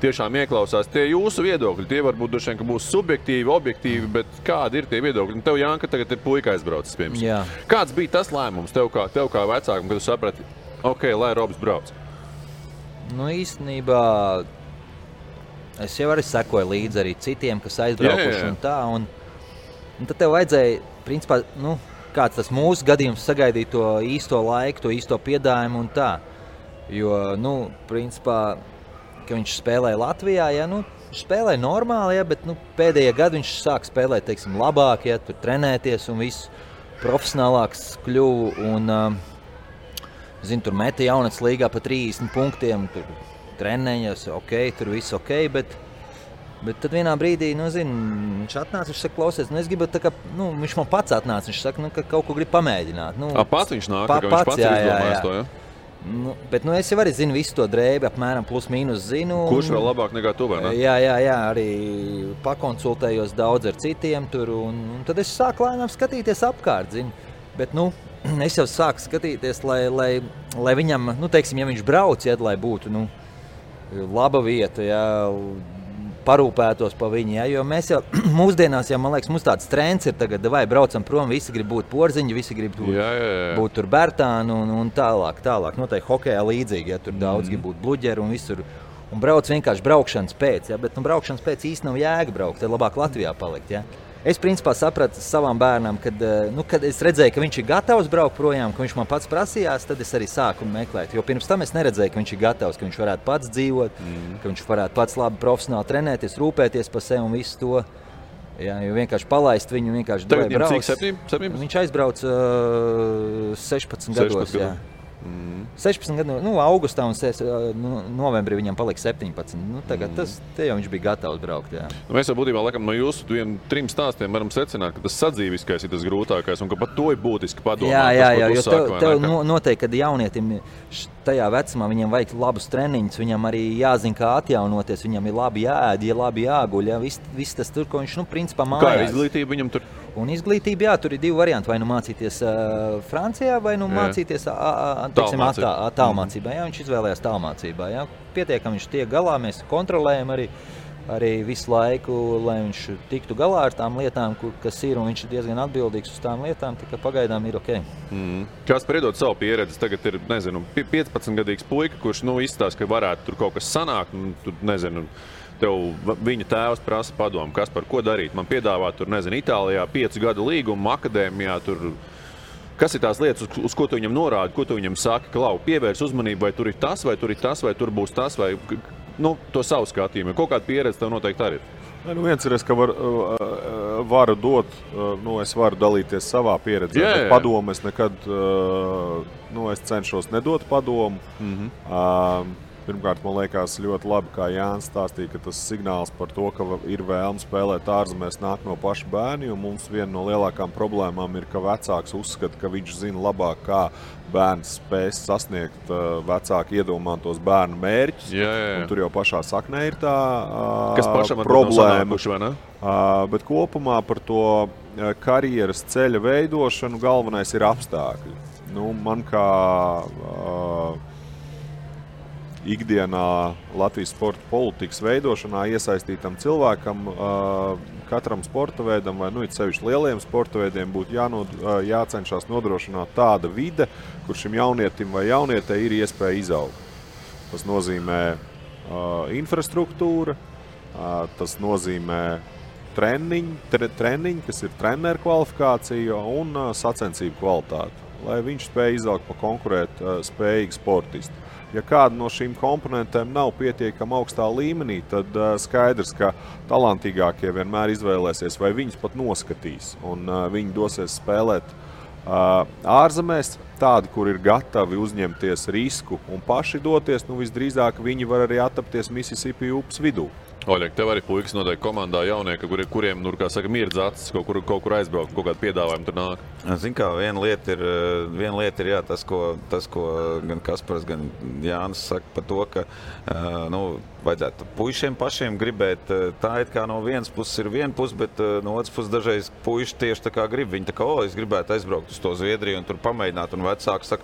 tiešām ieklausās tie jūsu viedokļi. Tie varbūt droši vien, ka būs subjektīvi, objektīvi, bet kādi ir tie viedokļi? Tev, Janka, tagad ir puika aizbraucis, piemēram. Kāds bija tas lēmums tev kā vecākam, kad tu saprati, lai Robs brauc? Īstenībā es jau arī sekoju līdzi arī citiem, kas aizbraukuši un tā. Un tad tev vajadzēja, principā, kāds tas mūsu gadījums sagaidīt to īsto laiku, to īsto piedājumu un tā. Jo, principā, ka viņš spēlēja Latvijā, viņš spēlēja normāli, bet pēdējie gadi viņš sāk spēlēt, teiksim, labāk, tur trenēties un viss profesionālāks kļuvu. Un, tur meta jaunats līgā pa 30 punktiem, tur trenējas, tur viss bet tad vienā brīdī, viņš atnāca, viņš saka, klausies, es gribu, viņš man pats atnāca, viņš saka, ka kaut ko grib pamēģināt. Pats viņš nāk, ka viņš pats ir izdomājis to, ja? Bet es jau arī zinu visu to drēbi, apmēram plus mīnus zinu. Kurš vēl labāk nekā tu, vai ne? Jā, arī pakonsultējos daudz ar citiem tur, un tad es sāku lēnām skatīties apkārt, Bet, es jau sāku skatīties, lai viņam, teiksim, ja viņš brauc, lai būtu, laba vieta, parūpētos pa viņu, ja? Jo mēs jau mūsdienās, man liekas, mums tāds trends ir tagad, vai braucam prom, visi grib būt Porziņi, visi grib būt tur Bertāni un tālāk. Noteikti hokejā līdzīgi, ja tur daudz grib būt bluģeri un visur. Un brauc vienkārši braukšanas pēc, ja? Bet braukšanas pēc īsti nav jēga braukt, tad labāk Latvijā palikt, ja? Es principā sapratu savam bērnam, kad es redzēju, ka viņš ir gatavs braukt projām, ka viņš man pats prasījās, tad es arī sāku meklēt. Jo pirms tam es neredzēju, ka viņš ir gatavs, ka viņš varētu pats dzīvot, ka viņš varētu pats labi profesionāli trenēties, rūpēties par sevi un visu to. Jā, jo vienkārši palaist viņu, vienkārši Tagad viņam cik 17? Viņš aizbrauc 16 gados. Jā. 16 gadu, augustā un novembrī viņam palika 17. Tagad te jau viņš bija gatavs braukt. Jā. Mēs jau būtībā laikam no jūsu 3 stāstiem varam secināt, ka tas sadzīviskais ir tas grūtākais un ka pat to ir būtiski padomāt. Jā, jo tev noteikti, kad jaunietim tajā vecumā viņam vajag labus treniņus, viņam arī jāzina, kā atjaunoties, viņam ir labi jāēd, labi jāguļ, ja? Viss tas tur, ko viņš, principā mājās. Kā ir izglītība viņam tur? Un izglītība, jā, tur ir 2 varianti, vai mācīties Francijā, vai mācīties tālmācībā. Jā, viņš izvēlējās tālmācībā. Jā. Pietiekam viņš tiek galā, mēs kontrolējam arī visu laiku, lai viņš tiktu galā ar tām lietām, kas ir, un viņš ir diezgan atbildīgs uz tām lietām, tikai pagaidām ir ok. Kāds priedot savu pieredzi, tagad ir, 15-gadīgs puika, kurš, izstāsta, ka varētu tur kaut kas sanākt, tev viņa tēvs prasa padomu, kas par ko darīt. Man piedāvā tur, Itālijā 5 gadu līgumu, akadēmijā tur. Kas ir tās lietas, uz ko tu viņam norādi, ko tu viņam saki, Klau, pievērs uzmanību, vai tur ir tas, vai tur ir tas, vai tur būs tas, vai to savu skatījumu. Kaut kāda pieredze tev noteikti arī ir. Viens ir, ka varu dot, es varu dalīties savā pieredzē, bet padomu es nekad, es cenšos nedot padomu. Pirmkārt, man liekas ļoti labi, kā Jānis stāstīja, ka tas signāls par to, ka ir vēlme spēlēt ārzemēs nāk no paša bērni, un mums viena no lielākām problēmām ir, ka vecāks uzskata, ka viņš zina labāk, kā bērns spēs sasniegt vecāki iedomātos bērnu mērķus. Un tur jau pašā saknē ir tā problēma. Bet kopumā par to karjeras ceļa veidošanu galvenais ir apstākļi. Man kā ikdienā Latvijas sporta politikas veidošanā iesaistītam cilvēkam, katram sporta veidam vai sevišķi lieliem sporta veidiem būtu jācenšas nodrošināt tāda vide, kur šim jaunietim vai jaunietei ir iespēja izaugt. Tas nozīmē infrastruktūra, tas nozīmē treniņi, kas ir treneru kvalifikācija un sacensību kvalitāte, lai viņš spēj izaugt pa konkurēt spējīgu sportistu. Ja kāda no šīm komponentēm nav pietiekama augstā līmenī, tad skaidrs, ka talantīgākie vienmēr izvēlēsies vai viņus pat noskatīs. Un viņi dosies spēlēt ārzemēs, tādi, kur ir gatavi uzņemties risku un paši doties, visdrīzāk viņi var arī attapties Mississippi upes vidū. Oļek, tev arī puikas noteikti komandā jaunieki, kuriem, mirdz acis, kaut kur aizbraukt, kaut kādu piedāvājumu tur nāk. Zin kā, viena lieta ir jā, tas, ko gan Kaspars, gan Jānis saka par to, ka vajadzētu puišiem pašiem gribēt. Tā it kā no vienas puses ir viena puse, bet no otras puses dažreiz puiši tieši tā kā grib. Viņi tā kā, es gribētu aizbraukt uz to Zviedriju un tur pamēģināt, un vecāki saka,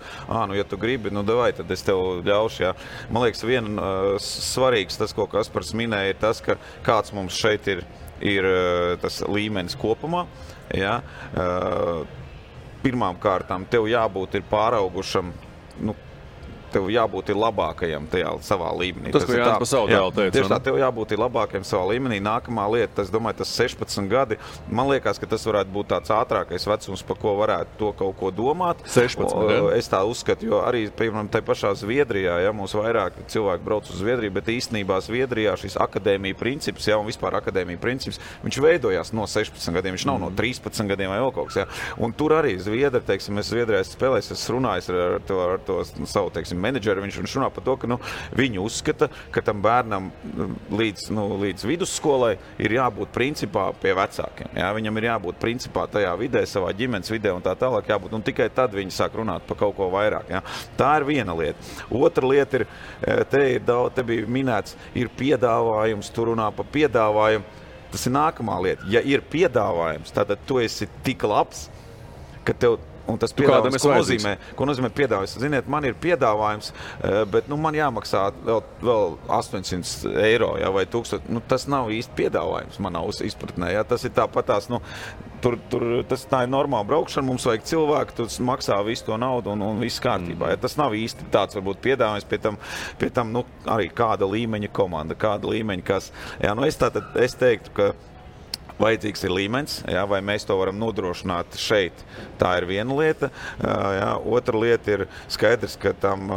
ja tu gribi, davai, tad es tev ļaušu, jā. Man liekas, viena svarīgs tas, ko Kaspars minēja, ir tas, ka kāds mums šeit ir tas līmenis kopumā. Ja? Pirmām kārtām tev jābūt ir pāraugušam, tev jābūt ir labākajam tajā savā līmenī. Tas, ko Jānis pa savu tēlu teica. Tieši tā, tev jābūt ir labākajam savā līmenī. Nākamā lieta, es domāju, tas 16 gadi. Man liekas, ka tas varētu būt tāds ātrākais vecums, par ko varētu to kaut ko domāt. 16, es tā uzskatu, jo arī, piemēram, tai pašā Zviedrijā, mums vairāk cilvēki brauc uz Zviedriju, bet īstenībā Zviedrijā šis akadēmija princips, un vispār akadēmija princips, viņš veidojās no 16 gadiem, viņš nav no 13 gadiem vai vēl kaut kas, Un tur arī Zviedri, teiksim, es Zviedrijā spēlēju, es runāju ar to savu, teiksim, menedžeri, viņš runā par to, ka viņi uzskata, ka tam bērnam līdz vidusskolai ir jābūt principā pie vecākiem. Jā, viņam ir jābūt principā tajā vidē, savā ģimenes vidē un tā tālāk jābūt, un tikai tad viņi sāk runāt par kaut ko vairāk. Jā. Tā ir viena lieta. Otra lieta ir, te bija minēts, ir piedāvājums, tu runā par piedāvājumu. Tas ir nākamā lieta. Ja ir piedāvājums, tad tu esi tik labs, ka tev Un tas piedāvājums, ko nozīmē piedāvājums? Ziniet, man ir piedāvājums, bet man jāmaksā vēl 800 eiro, ja, vai 1000. Tas nav īsti piedāvājums manā izpratnē. Ja. Tas ir tāpatās, tā ir normāla braukšana, mums vajag cilvēku, tu maksā visu to naudu un viss kārtībā. Ja. Tas nav īsti tāds varbūt piedāvājums, pie tam arī kāda līmeņa komanda, kāda līmeņa kas. Ja, es teiktu, ka vajadzīgs ir līmenis, jā, vai mēs to varam nodrošināt šeit. Tā ir viena lieta. Jā, otra lieta ir skaidrs, ka tam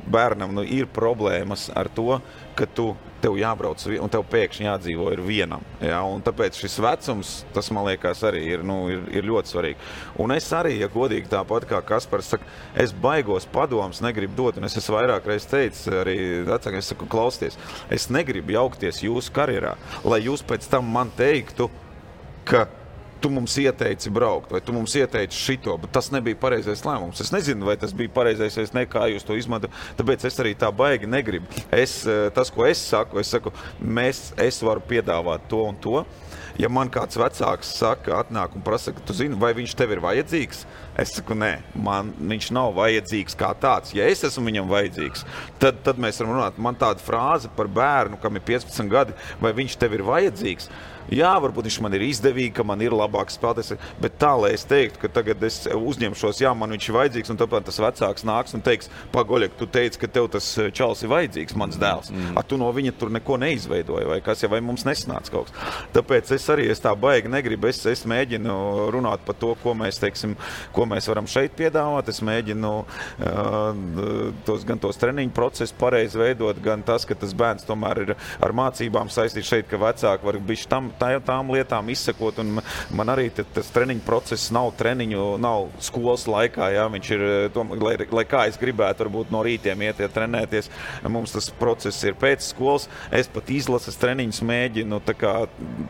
bērnam ir problēmas ar to, ka tev jābrauc un tev pēkšņi jādzīvo ir vienam. Jā, un tāpēc šis vecums, tas man liekas arī ir ļoti svarīgi. Un es arī, ja godīgi tāpat kā Kaspars saka, es baigos padomus negribu dot, un es esmu vairāk reiz teicis arī vecākiem, es saku, klausieties, es negribu jaukties jūsu karjerā, lai jūs pēc tam man teiktu, ka tu mums ieteici braukt, vai tu mums ieteici šito, bet tas nebija pareizais lēmums. Es nezinu, vai tas bija pareizais, vai ne, kā jūs to izmantojat, tāpēc es arī tā baigi negribu. Tas, ko es saku, es varu piedāvāt to un to. Ja man kāds vecāks saka, atnāk un prasa, ka tu zini, vai viņš tev ir vajadzīgs, es saku, nē, viņš nav vajadzīgs kā tāds. Ja es esmu viņam vajadzīgs, tad mēs varam runāt. Man tāda frāze par bērnu, kam ir 15 gadi, vai viņš tev ir vajadzīgs. Jā, varbūt viņš man ir izdevīgi, ka man ir labāks spēlētājs, bet tā, lai es teiktu, ka tagad es uzņemšos, jā, man viņš ir vajadzīgs, un tāpēc tas vecāks nāks un teiks, Pagoļek, tu teici, ka tev tas čals ir vajadzīgs, mans dēls. Tu no viņa tur neko neizveidoji, vai kas, vai mums nesanāca kaut kas. Tāpēc es tā baigi negribu, es mēģinu runāt par to, ko mēs varam šeit piedāvāt, es mēģinu gan tos treniņu procesus pareizi veidot, gan tas, ka tas bērns tomēr ir ar mācībām saistīts šeit, ka vecāki var bišķi tām lietām izsekot, un man arī tas treniņu process nav skolas laikā, jā, viņš ir, lai kā es gribētu varbūt no rītiem iet trenēties, mums tas process ir pēc skolas, es pat izlases treniņus mēģinu, tā kā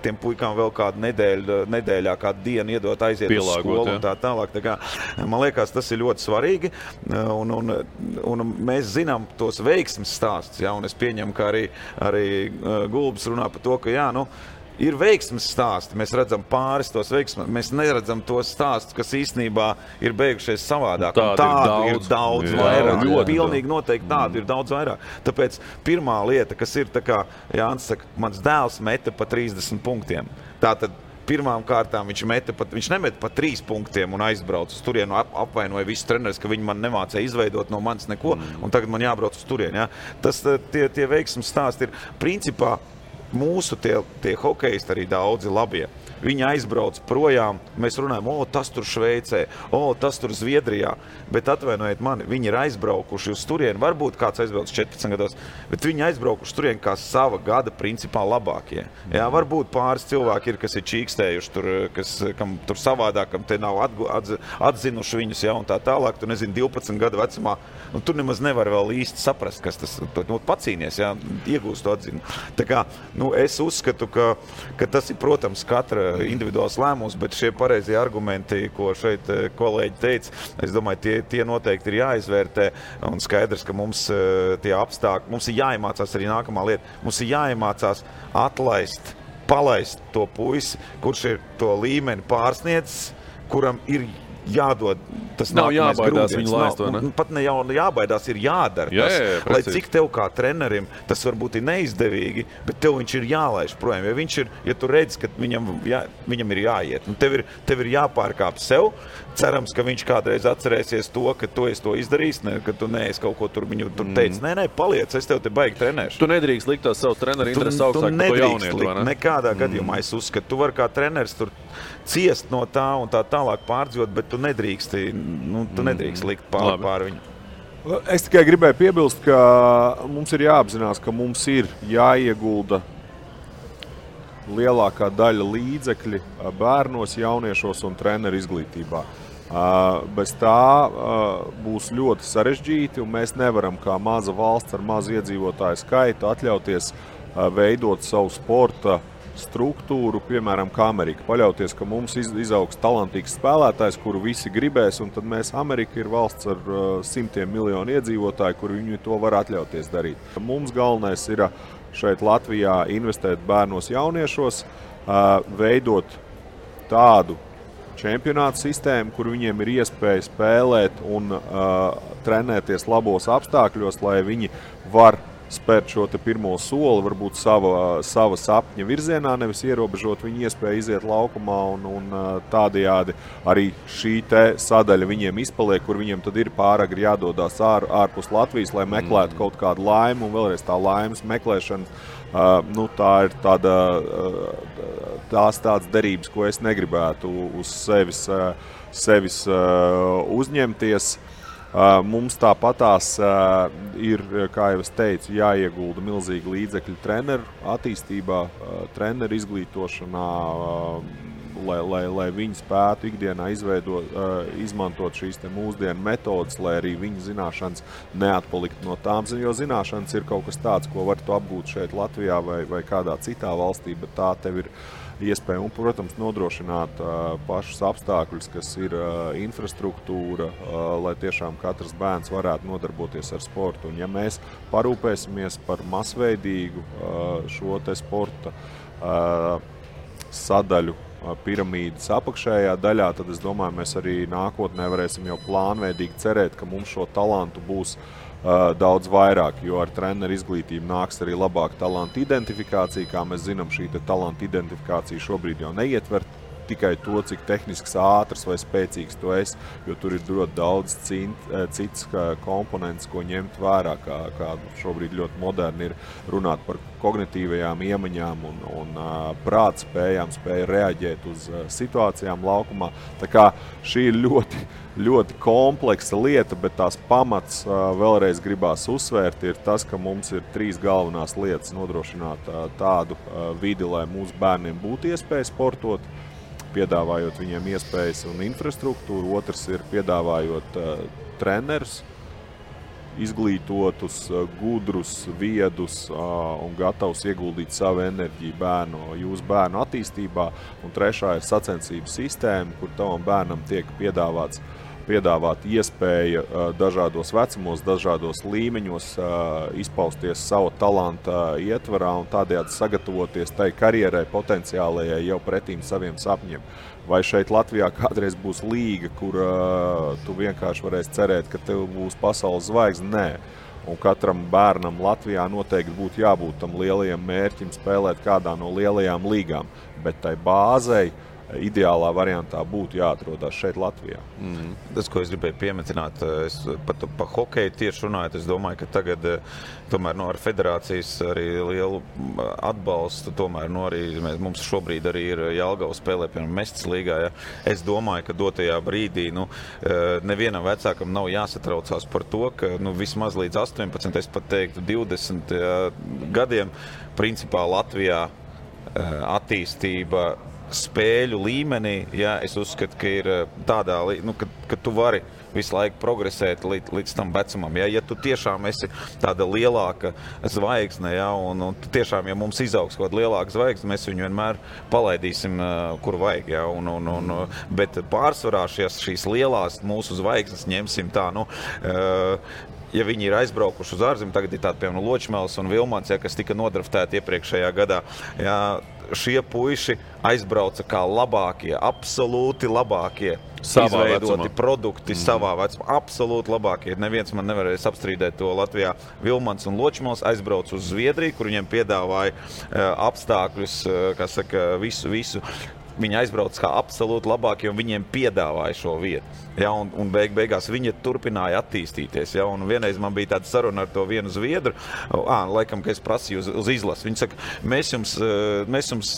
tiem puikām vēl kādu nedēļā, kādu dienu iedot aiziet uz skolu un tā tālāk, tā kā, man liekas, tas ir ļoti svarīgi, un mēs zinām tos veiksmes stāstus, jā, un es pieņemu, ka arī Gulbis runā par to, ka jā, ir veiksmes stāsti, mēs redzam pāris tos veiksmes, mēs neredzam tos stāstus, kas īstenībā ir beigušies savādāk. Tādu ir daudz vairāk. Pilnīgi noteikti tādu ir daudz vairāk. Tāpēc pirmā lieta, kas ir, tā kā Jānis saka, mans dēls meta pa 30 punktiem. Tātad pirmām kārtām viņš nemeta pa 3 punktiem un aizbrauc uz turienu, apvainoja visus treneris, ka viņi man nemācēja izveidot no manis neko, un tagad man jābrauc uz turienu. Ja? Tie veiksmes stāsti ir principā mūsu tie hokejisti arī daudzi labie. Viņi aizbrauc projām, mēs runājam, tas tur Šveicē, tas tur Zviedrijā, bet atvainojiet mani, viņi ir aizbraukuši uz turieni, varbūt kāds aizbrauc 14 gados, bet viņi aizbraukuši turieni kā sava gada principā labākie. Jā, varbūt pāris cilvēki ir, kas ir čīkstējuši tur, kam tur savādāk, kam te nav atzinuši viņus, jā, un tā tālāk, tu nezini, 12 gadu vecumā, tur nemaz nevar vēl īsti saprast, kas tas, pacīnies, jā, iegūst to atzinu. Tā kā, es uzskatu, ka tas ir, protams, katra individuāls lēmums, bet šie pareizie argumenti, ko šeit kolēģi teica, es domāju, tie noteikti ir jāizvērtē, un skaidrs, ka mums tie apstākļi, mums ir jāiemācās arī nākamā lieta, mums ir jāiemācās palaist to puisi, kurš ir to līmeni pārsniedzis, kuram ir jādod tas nav jābaidās viņu laist, vai ne? Pat ne jau jābaidās, ir jādara tas. Lai cik tev kā trenerim tas varbūt ir neizdevīgi, bet tev viņš ir jālaiž projām. Ja tu redzi, ka viņam ir jāiet, tev ir jāpārkāp sev, cerams, ka viņš kādreiz atcerēsies to, ka tu esi to izdarījis, ka tu neesi kaut ko tur viņu tur teici. Nē, paliec, es tev te baigi trenēšu. Tu nedrīkst likt tās savu treneru interesi augstāk par to jaunietu, vai ne? Nekādā gadījumā es uzskatu. Tu vari kā treneris tur ciest no tā un tā tālāk pārdzīvot, bet tu nedrīkst likt pār viņu. Es tikai gribēju piebilst, ka mums ir jāapzinās, ka mums ir jāiegulda lielākā daļa līdzekļi bērnos, jauniešos un treneru izglītībā. Bez tā būs ļoti sarežģīti, un mēs nevaram kā maza valsts ar mazu iedzīvotāju skaitu atļauties veidot savu sporta struktūru, piemēram, kā Amerika. Paļauties, ka mums izaugs talantīgs spēlētājs, kuru visi gribēs, un tad Amerika ir valsts ar 100 miljonu iedzīvotāju, kur viņi to var atļauties darīt. Mums galvenais ir šeit Latvijā investēt bērnos jauniešos, veidot tādu čempionāta sistēma, kur viņiem ir iespēja spēlēt un trenēties labos apstākļos, lai viņi var spērt šo te pirmo soli, varbūt sava sapņa virzienā, nevis ierobežot viņu iespēju iziet laukumā un tādējādi arī šī te sadaļa viņiem izpaliek, kur viņiem tad ir pāragri jādodās ārpus Latvijas, lai meklētu kaut kādu laimu, un vēlreiz tā laimes meklēšana, tā ir tās tādas derības, ko es negribētu uz sevis uzņemties. Mums tāpatās ir, kā jau es teicu, jāiegulda milzīgi līdzekļi treneru attīstībā, treneru izglītošanā, lai viņi spētu ikdienā izmantot šīs te mūsdienu metodas, lai arī viņu zināšanas neatpalikt no tām, jo zināšanas ir kaut kas tāds, ko var tu apgūt šeit Latvijā vai kādā citā valstī, bet tā tev ir iespēja un, protams, nodrošināt pašus apstākļus, kas ir infrastruktūra, lai tiešām katrs bērns varētu nodarboties ar sportu. Un ja mēs parūpēsimies par masveidīgu šo te sporta sadaļu piramīdas apakšējā daļā, tad es domāju, mēs arī nākotnē varēsim jau plānveidīgi cerēt, ka mums šo talantu būs daudz vairāk, jo ar treneru izglītību nāks arī labāka talantu identifikācija. Kā mēs zinām, šī talantu identifikācija šobrīd jau neietver tikai to, cik tehnisks, ātrs vai spēcīgs tu esi, jo tur ir ļoti daudz cits komponents, ko ņemt vērā, kā šobrīd ļoti moderni ir runāt par kognitīvajām iemaņām un prāta spējām, spēja reaģēt uz situācijām laukumā. Tā kā šī ir ļoti, ļoti kompleksa lieta, bet tās pamats vēlreiz gribās uzsvērt ir tas, ka mums ir 3 galvenās lietas nodrošināt tādu vidi, lai mūsu bērniem būtu iespēja sportot, piedāvājot viņiem iespējas un infrastruktūru. Otrs ir piedāvājot trenerus, izglītotus, gudrus, viedus un gatavus ieguldīt savu enerģiju jūsu bērnu attīstībā. Un trešā ir sacensību sistēma, kur tavam bērnam tiek piedāvāt iespēja dažādos vecumos, dažādos līmeņos izpausties savu talanta ietvarā un tādējādi sagatavoties tai karjerai potenciālajai jau pretīm saviem sapņiem. Vai šeit Latvijā kādreiz būs līga, kur tu vienkārši varēsi cerēt, ka tev būs pasaules zvaigzne? Nē. Un katram bērnam Latvijā noteikti būtu jābūt tam lielajam mērķim spēlēt kādā no lielajām līgām, bet tai bāzei ideālā variantā būtu jāatrodās šeit Latvijā. Tas, ko es gribēju piemetināt, es pa hokeju tieši runājot, es domāju, ka tagad tomēr ar federācijas arī lielu atbalstu, tomēr arī mums šobrīd arī ir Jelgava spēlē, piemēram, Mestas līgā. Ja. Es domāju, ka dotajā brīdī nevienam vecākam nav jāsatraucās par to, ka vismaz līdz 18, es pat teiktu 20 gadiem, principā Latvijā attīstība spēļu līmenī, ja, es uzskatu, ka ir tādā, ka tu vari visu laiku progresēt līdz tam vecumam. Ja tu tiešām esi tāda lielāka zvaigzne, ja, un tiešām, ja mums izaugs kaut kāda lielāka zvaigzne, mēs viņu vienmēr palaidīsim, kur vajag. Ja, bet pārsvarā šīs lielās mūsu zvaigznes ņemsim tā, ja viņi ir aizbraukuši uz ārzemi, tagad ir tādi, piemēram, Ločmels un Vilmans, ja, kas tika nodraftēti iepriekšējā gadā, ja, šie puiši aizbrauca kā labākie, absolūti labākie izveidoti produkti savā vecumā. Absolūti labākie. Neviens man nevarēs apstrīdēt to Latvijā. Vilmans un Ločmels aizbrauca uz Zviedriju, kur viņiem piedāvāja apstākļus, visu. Viņi aizbrauca kā absolūti labākie, un viņiem piedāvāja šo vietu. Ja, un beigās viņi turpināja attīstīties. Ja, un vienreiz man bija tāda saruna ar to vienu zviedru, laikam, ka es prasīju uz izlasi. Viņi saka, mēs jums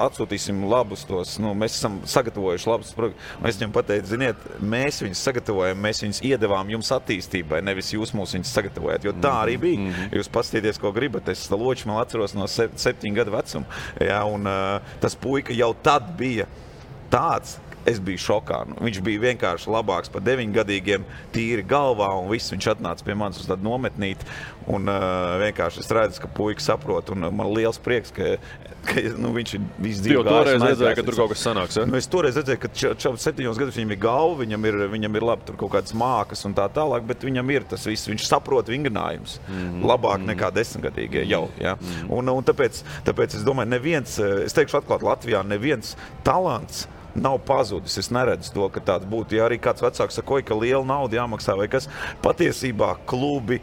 atsūtīsim labus tos, mēs esam sagatavojuši labus projektus. Es viņam pateicu, ziniet, mēs viņus sagatavojam, mēs viņus iedevām jums attīstībai, nevis jūs mūs viņus sagatavojat, jo tā arī bija. Jūs paskatieties, ko gribat. Es Ločmelu atceros no 7 gadu vecuma. Ja, un tas puika jau tad bija tāds, es biju šokā. Viņš bija vienkārši labāks par 9-gadīgiem, tīri galvā, un viss viņš atnāca pie manis uz tādu nometnīti, un vienkārši es redzu, ka puika saprot, un man liels prieks, ka viņš ir visu dzīvi gājis. Toreiz redzēju, ka tur kaut kas sanāks, ja? Es toreiz redzēju, ka 7 gadus viņam ir galva, viņam ir labi tur kaut kādas mākas un tā tālāk, bet viņam ir tas viss, viņš saprot vingrinājums labāk nekā 10-gadīgie jau. Ja? Un tāpēc es domāju, es teikšu atklāt, Latvijā neviens talants nav pazudis. Es neredzu to, ka tāds būtu. Ja arī kāds vecāks saka, ka liela nauda jāmaksā vai kas, patiesībā klubi,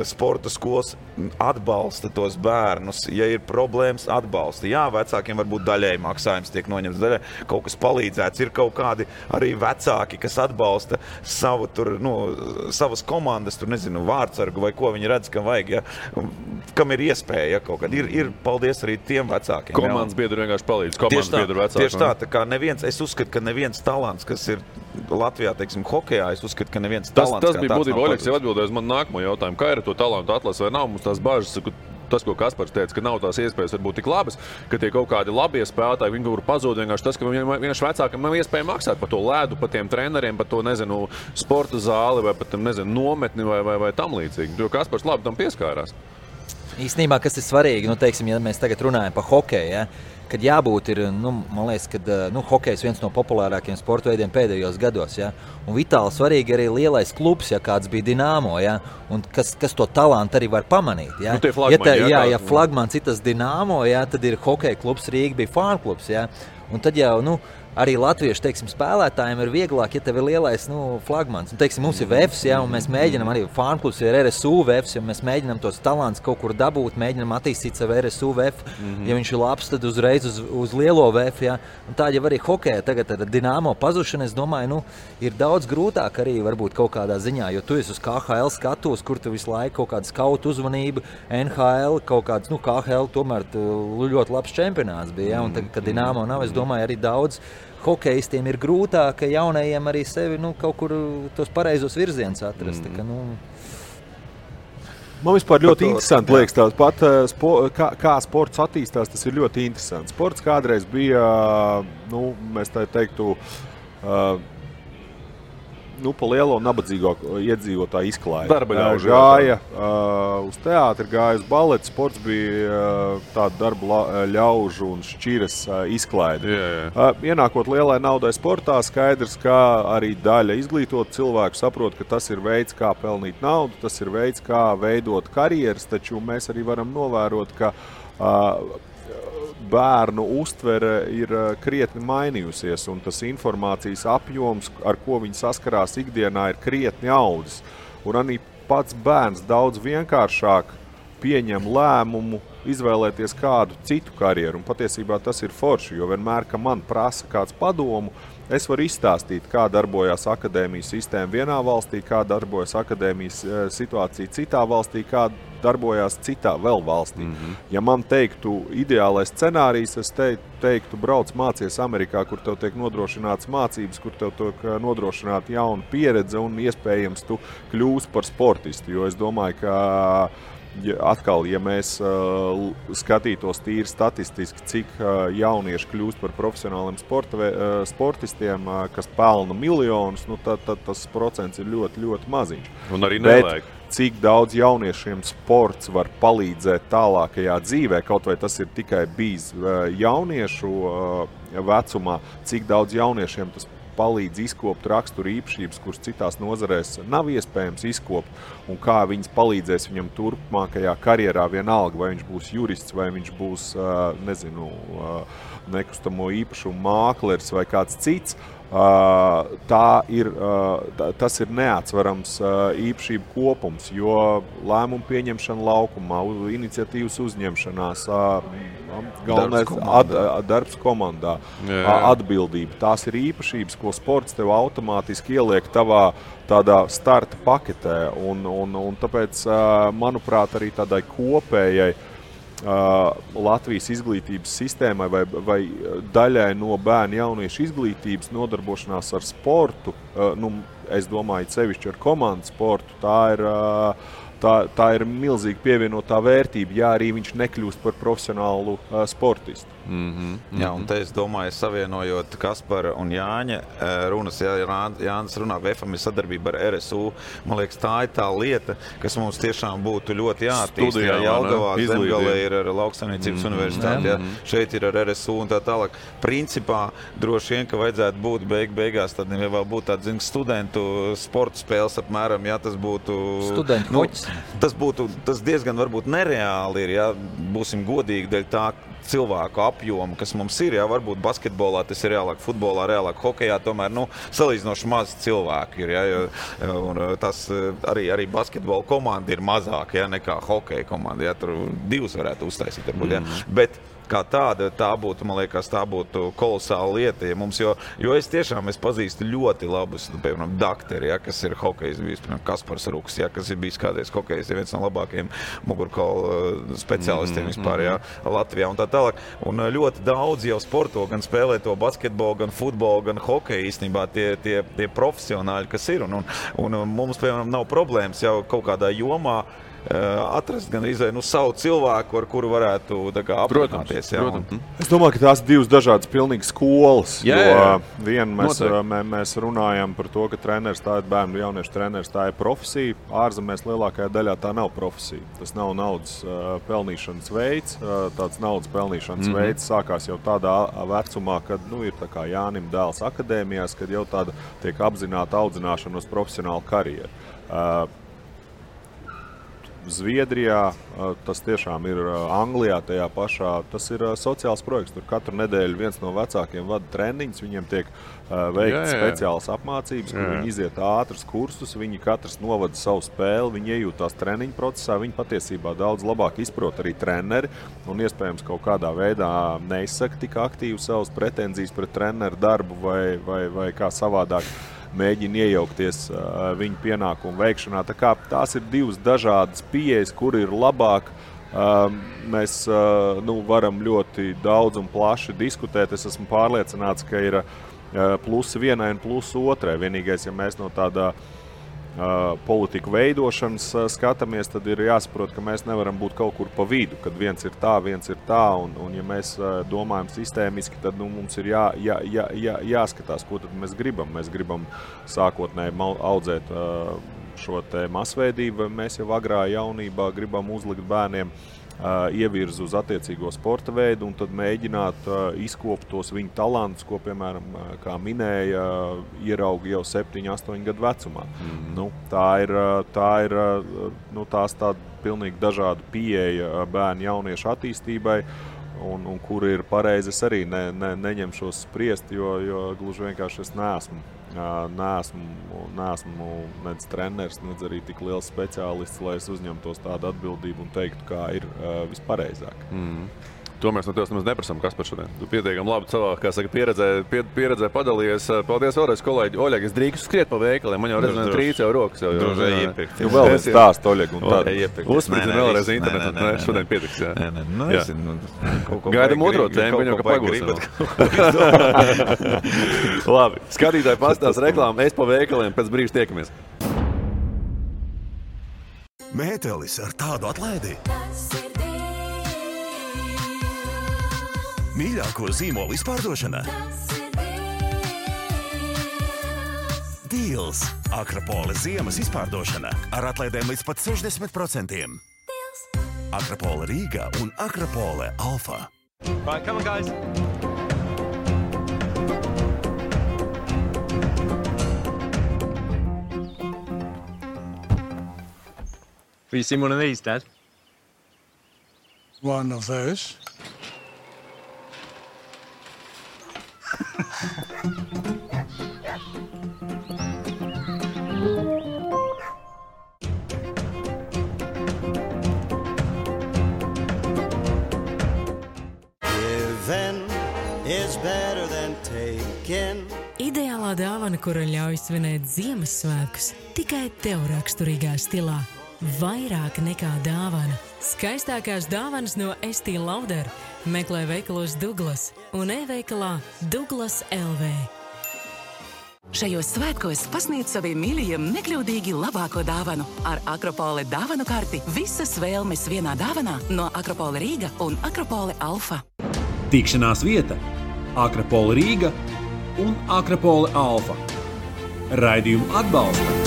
sporta skolas atbalsta tos bērnus. Ja ir problēmas, atbalsta. Jā, vecākiem varbūt daļēji maksājums tiek noņemts, daļēji kaut kas palīdzēts. Ir kaut kādi arī vecāki, kas atbalsta savu tur, savas komandas, tur nezinu, vārdsargu vai ko viņi redz, ka vajag, ja, kam ir iespēja, ja, kaut kad. Ir paldies arī tiem vecākiem. Komandas biedri vienkārši palīdz. Komandas biedri vecāki. Tieši tā kā neviens, es uzskatu, ka neviens talants, kas ir Latvijā, teiksim, hokejā, es uzskatu, ka neviens talants tas bija būtībā, Oļegs jau atbildēja uz manu nākamo jautājumu. Kā ir to talantu atlase vai nav? Mums tās bāžas, tas, ko Kaspars teica, ka nav tās iespējas varbūt tik labas, ka tie kaut kādi labie spēlētāji, viņi var pazūd vienkārši tas, ka vienkārši vecākam nav iespēja maksāt par to ledu, par tiem treneriem, par to, nezinu, sporta zāli vai pat, nezinu, nometni vai tam līdzīgi. Jo Kaspars labi tam pieskārās. Īstenībā, kas ir svarīgi, teiksim, ja mēs tagad runājam par hokeju, ja, kad jābūt ir, man liekas, kad hokejs viens no populārākiem sporta veidiem pēdējos gados, ja, un vitāli svarīgi arī lielais klubs, ja kāds bija Dinamo, ja, un kas to talantu arī var pamanīt, ja. Tie flagmani, ja flagmans ir tas Dinamo, ja, tad ir hokeja klubs, Rīga bija fānu klubs, ja, un tad jau, arī latviešu, teiksim, spēlētājiem ir vieglāk, ja tev ir lielais, flagmans. Un, teiksim, mums ir VEFs, ja, un mēs mēģinam arī fānklubs ir RSU VEFs, ja mēs mēģinam tos talants kaut kur dabūt, mēģinam attīstīt savu RSU VEF. Ja viņš ir labs, tad uzreiz uz lielo VEF, ja. Un tā jau arī hokeja tagad ar Dinamo pazušanu, es domāju, ir daudz grūtāk arī varbūt kaut kādā ziņā, jo tu esi uz KHL skatos, kur tu visu laiku kaut kāda skautu uzmanība, NHL, kaut kāds, KHL tomēr ļoti labs čempionāts bija, ja, un tagad, kad Dinamo nav, es domāju, arī daudz hokejistiem ir grūtāk, ka jaunajiem arī sevi kaut kur tos pareizos virzienus atrast. Man vispār ļoti interesanti liekas tās pat, kā sports attīstās, tas ir ļoti interesanti. Sports kādreiz bija, mēs tā teiktu, pa lielo nabadzīgo iedzīvotāju izklaidi. Darba ļaužu. Gāja uz teātri, gāja uz baleti, sports bija tāda darba ļaužu un šķiras izklaidi. Ienākot lielai naudai sportā, skaidrs, ka arī daļa izglītot cilvēku saprot, ka tas ir veids, kā pelnīt naudu, tas ir veids, kā veidot karjeras, taču mēs arī varam novērot, ka bērnu uztvere ir krietni mainījusies, un tas informācijas apjoms, ar ko viņi saskarās ikdienā, ir krietni audzis. Un arī pats bērns daudz vienkāršāk pieņem lēmumu izvēlēties kādu citu karjeru, un patiesībā tas ir forši, jo vienmēr, ka man prasa kāds padomu, es varu izstāstīt, kā darbojās akadēmijas sistēma vienā valstī, kā darbojas akadēmijas situācija citā valstī, kā darbojās citā vēl valstī. Ja man teiktu ideālais scenārijs, es teiktu, brauc mācies Amerikā, kur tev tiek nodrošināts mācības, kur tev tiek nodrošināta jauna pieredze un iespējams tu kļūsi par sportistu, jo es domāju, ka atkal, ja mēs skatītos tīri statistiski, cik jaunieši kļūst par profesionāliem sportistiem, kas pelna miljonus, tad tas procents ir ļoti, ļoti maziņš. Un arī nevajag. Cik daudz jauniešiem sports var palīdzēt tālākajā dzīvē, kaut vai tas ir tikai bijis jauniešu vecumā, cik daudz jauniešiem tas palīdz izkopt raksturu īpašības, kuras citās nozarēs nav iespējams izkopt, un kā viņas palīdzēs viņam turpmākajā karjerā vienalga, vai viņš būs jurists, vai viņš būs, nekustamo īpašumu mākleris vai kāds cits. Tas ir neatsverams īpašību kopums, jo lēmumu pieņemšana laukumā, iniciatīvas uzņemšanās, darbs komandā, atbildība. Tās ir īpašības, ko sports tev automātiski ieliek tavā tādā starta paketē, un tāpēc, manuprāt, arī tādai kopējai Latvijas izglītības sistēmai vai daļai no bērnu jauniešu izglītības nodarbošanās ar sportu, es domāju, sevišķi ar komandu sportu, tā ir milzīga pievienotā vērtība, ja arī viņš nekļūst par profesionālu sportistu. Jā, un te es domāju, savienojot Kaspara un Jāņa runas, ja Jānis runā, VEFam ir sadarbība ar RSU, man liekas, tā ir tā lieta, kas mums tiešām būtu ļoti jāattīst. Ja Jelgavā, Zemgalē ir ar Lauksaimniecības universitāti, šeit ir ar RSU un tā tālāk. Principā, droši vien, ka vajadzētu būt beigās, tad vēl būtu tāda, studentu sporta spēles apmēram, ja tas būtu... Studentu hoķis. Tas diezgan varbūt nereāli ir, ja būsim godīgi, dēļ tā, cilvēku apjomu, kas mums ir, jā, varbūt basketbolā tas ir reālāk, futbolā reālāk, hokejā tomēr, salīdzinoši maz cilvēku ir, jā, un tas arī basketbola komanda ir mazāk, jā, nekā hokeja komanda, jā, tur 2 varētu uztaisīt, varbūt, jā, bet kā tāda, man liekas, tā būtu kolosāla lieta, ja mums, jo es pazīstu ļoti labus, piemēram, dakteri, ja, kas ir hokejs, bijis, piemēram, Kaspars Ruks, ja, kas ir bijis kādreiz hokejs, ja viens no labākajiem mugurkaula speciālistiem vispār, ja, Latvijā un tā tālāk. Un ļoti daudz jau sporto, gan spēlē to basketbolu, gan futbolu, gan hokeju īstenībā tie profesionāļi, kas ir. Un mums, piemēram, nav problēmas jau kaut kādā jomā atrast gan savu cilvēku, ar kuru varētu aprunāties. Protams. Es domāju, ka tās 2 dažādas pilnīgi skolas. Viena mēs runājam par to, ka treneris tā ir bērnu jauniešu treneris, tā ir profesija. Ārzemēs lielākajā daļā tā nav profesija. Tas nav naudas pelnīšanas veids. Tāds naudas pelnīšanas veids sākās jau tādā vecumā, kad ir tā kā Jānim dēls akadēmijās, kad jau tāda tiek apzināta audzināšana uz profesionālu karjeru. Zviedrijā, tas tiešām ir Anglijā tajā pašā, tas ir sociāls projekts. Tur katru nedēļu viens no vecākiem vada treniņus, viņiem tiek veikts speciāls apmācības, kur viņi iziet ātrus kursus, viņi katrs novada savu spēli, viņi iejūtās treniņu procesā, viņi patiesībā daudz labāk izprot arī treneri un iespējams kaut kādā veidā neizsaka tik aktīvi savas pretenzijas pret treneru darbu vai kā savādāk mēģina iejaukties viņu pienākumu veikšanā. Tā kā tās ir 2 dažādas pieejas, kur ir labāk. Mēs varam ļoti daudz un plaši diskutēt. Es esmu pārliecināts, ka ir plusi vienai un plusi otrai. Vienīgais, ja mēs no tādā politiku veidošanas skatāmies, tad ir jāsaprot, ka mēs nevaram būt kaut kur pa vidu, kad viens ir tā, un ja mēs domājam sistēmiski, tad mums ir jāskatās, ko tad mēs gribam. Mēs gribam sākotnēji audzēt šo te masveidību, mēs jau agrā jaunībā gribam uzlikt bērniem ievirzu uz attiecīgo sporta veidu un tad mēģināt izkopt tos viņu talantus, ko, piemēram, kā minēja, ierauga jau 7-8 gadu vecumā. Tā ir tās tāda pilnīgi dažāda pieeja bērnu jauniešu attīstībai, un kur ir pareizi, es arī neņemšos spriest, jo gluži vienkārši es neesmu nec treneris, nec arī tik liels speciālists, lai es uzņemtos tādu atbildību un teiktu, kā ir vispareizāk. To mēs no tevis nemaz neprasām, kas par šodien. Tu pietiekami labi savā, kā saka, pieredzē padalījies. Paldies vēlreiz, kolēģi. Oļeg, es drīkstu skriet pa veikaliem. Man jau redzēt trīc jau rokas. Tu vēl stāst, Oļeg, un tad uzspridzini vēlreiz internetu. Šodien pietiks, jā. Gaidam otro tēmu, viņam kā pagūsim. Labi, skatītāji pastās reklāmu, es pa veikaliem, pēc brīža tiekamies. Mētelis ar tādu atlaidi. Mīļāko zīmolu izpārdošana. Deals. Akropole ziemas izpārdošana ar atlaidēm līdz pat 60%. Akropole Rīga un Akropole Alfa. Right, come on, guys. Have you seen one of these, Dad? One of those. Ideālā dāvana, kura ļauj svinēt Ziemassvētkus, tikai tev raksturīgā stilā. Vairāk nekā dāvana. Skaistākās dāvanas no Estī Lauder. Meklē veikalos Douglas un e-veikalā Douglas LV. Šajos svētkos pasniedz saviem mīļajiem nekļūdīgi labāko dāvanu. Ar Akropole dāvanu karti visas vēlmes vienā dāvanā no Akropole Rīga un Akropole Alfa. Tikšanās vieta Akropole Rīga un Akropole Alfa. Raidījumu atbalsta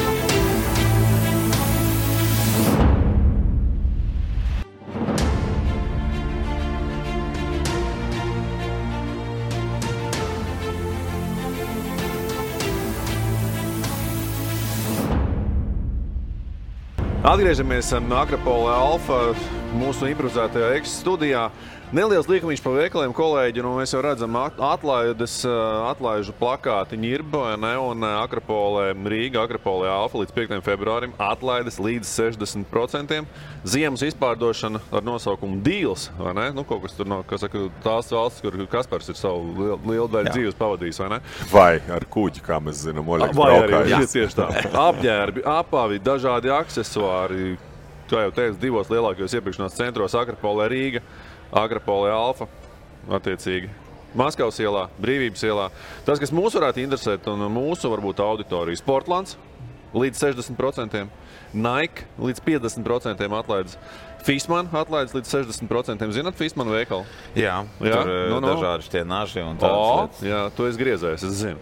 Atgriežamies Akropole Alfa mūsu improvizētajā studijā. Neliels līkumiņš pa veikaliem, kolēģi, nu mēs jau redzam atlaižu plakāti Ņirba, un Akropolē Rīga, Akropolē Alfa līdz 5. februārim atlaides līdz 60%. Ziemas izpārdošana ar nosaukumu Deals, vai ne? Nu, kaut kas tur no, kas saka, tās valsts, kur Kaspars ir savu lielu daļu dzīves pavadījis, vai ne? Vai ar kuģi, kā mēs zinām, Oļegs braukājis. Tieši tā. Apģērbi, apavi, dažādi aksesuāri, kā jau teicu, 2 lielākajos iepirkšanās centros Akropolē Rīga, Akropolē Alfa, attiecīgi Maskavas ielā, Brīvības ielā. Tas, kas mūs varētu interesēt, un mūsu varbūt auditorija, Sportlands līdz 60%, Nike līdz 50% atlaides, Fishman atlaides līdz 60%. Zināt Fishman veikalu? Jā, tur dažādi tie naži un tādas lietas. Jā, tu esi griezējis, es zinu.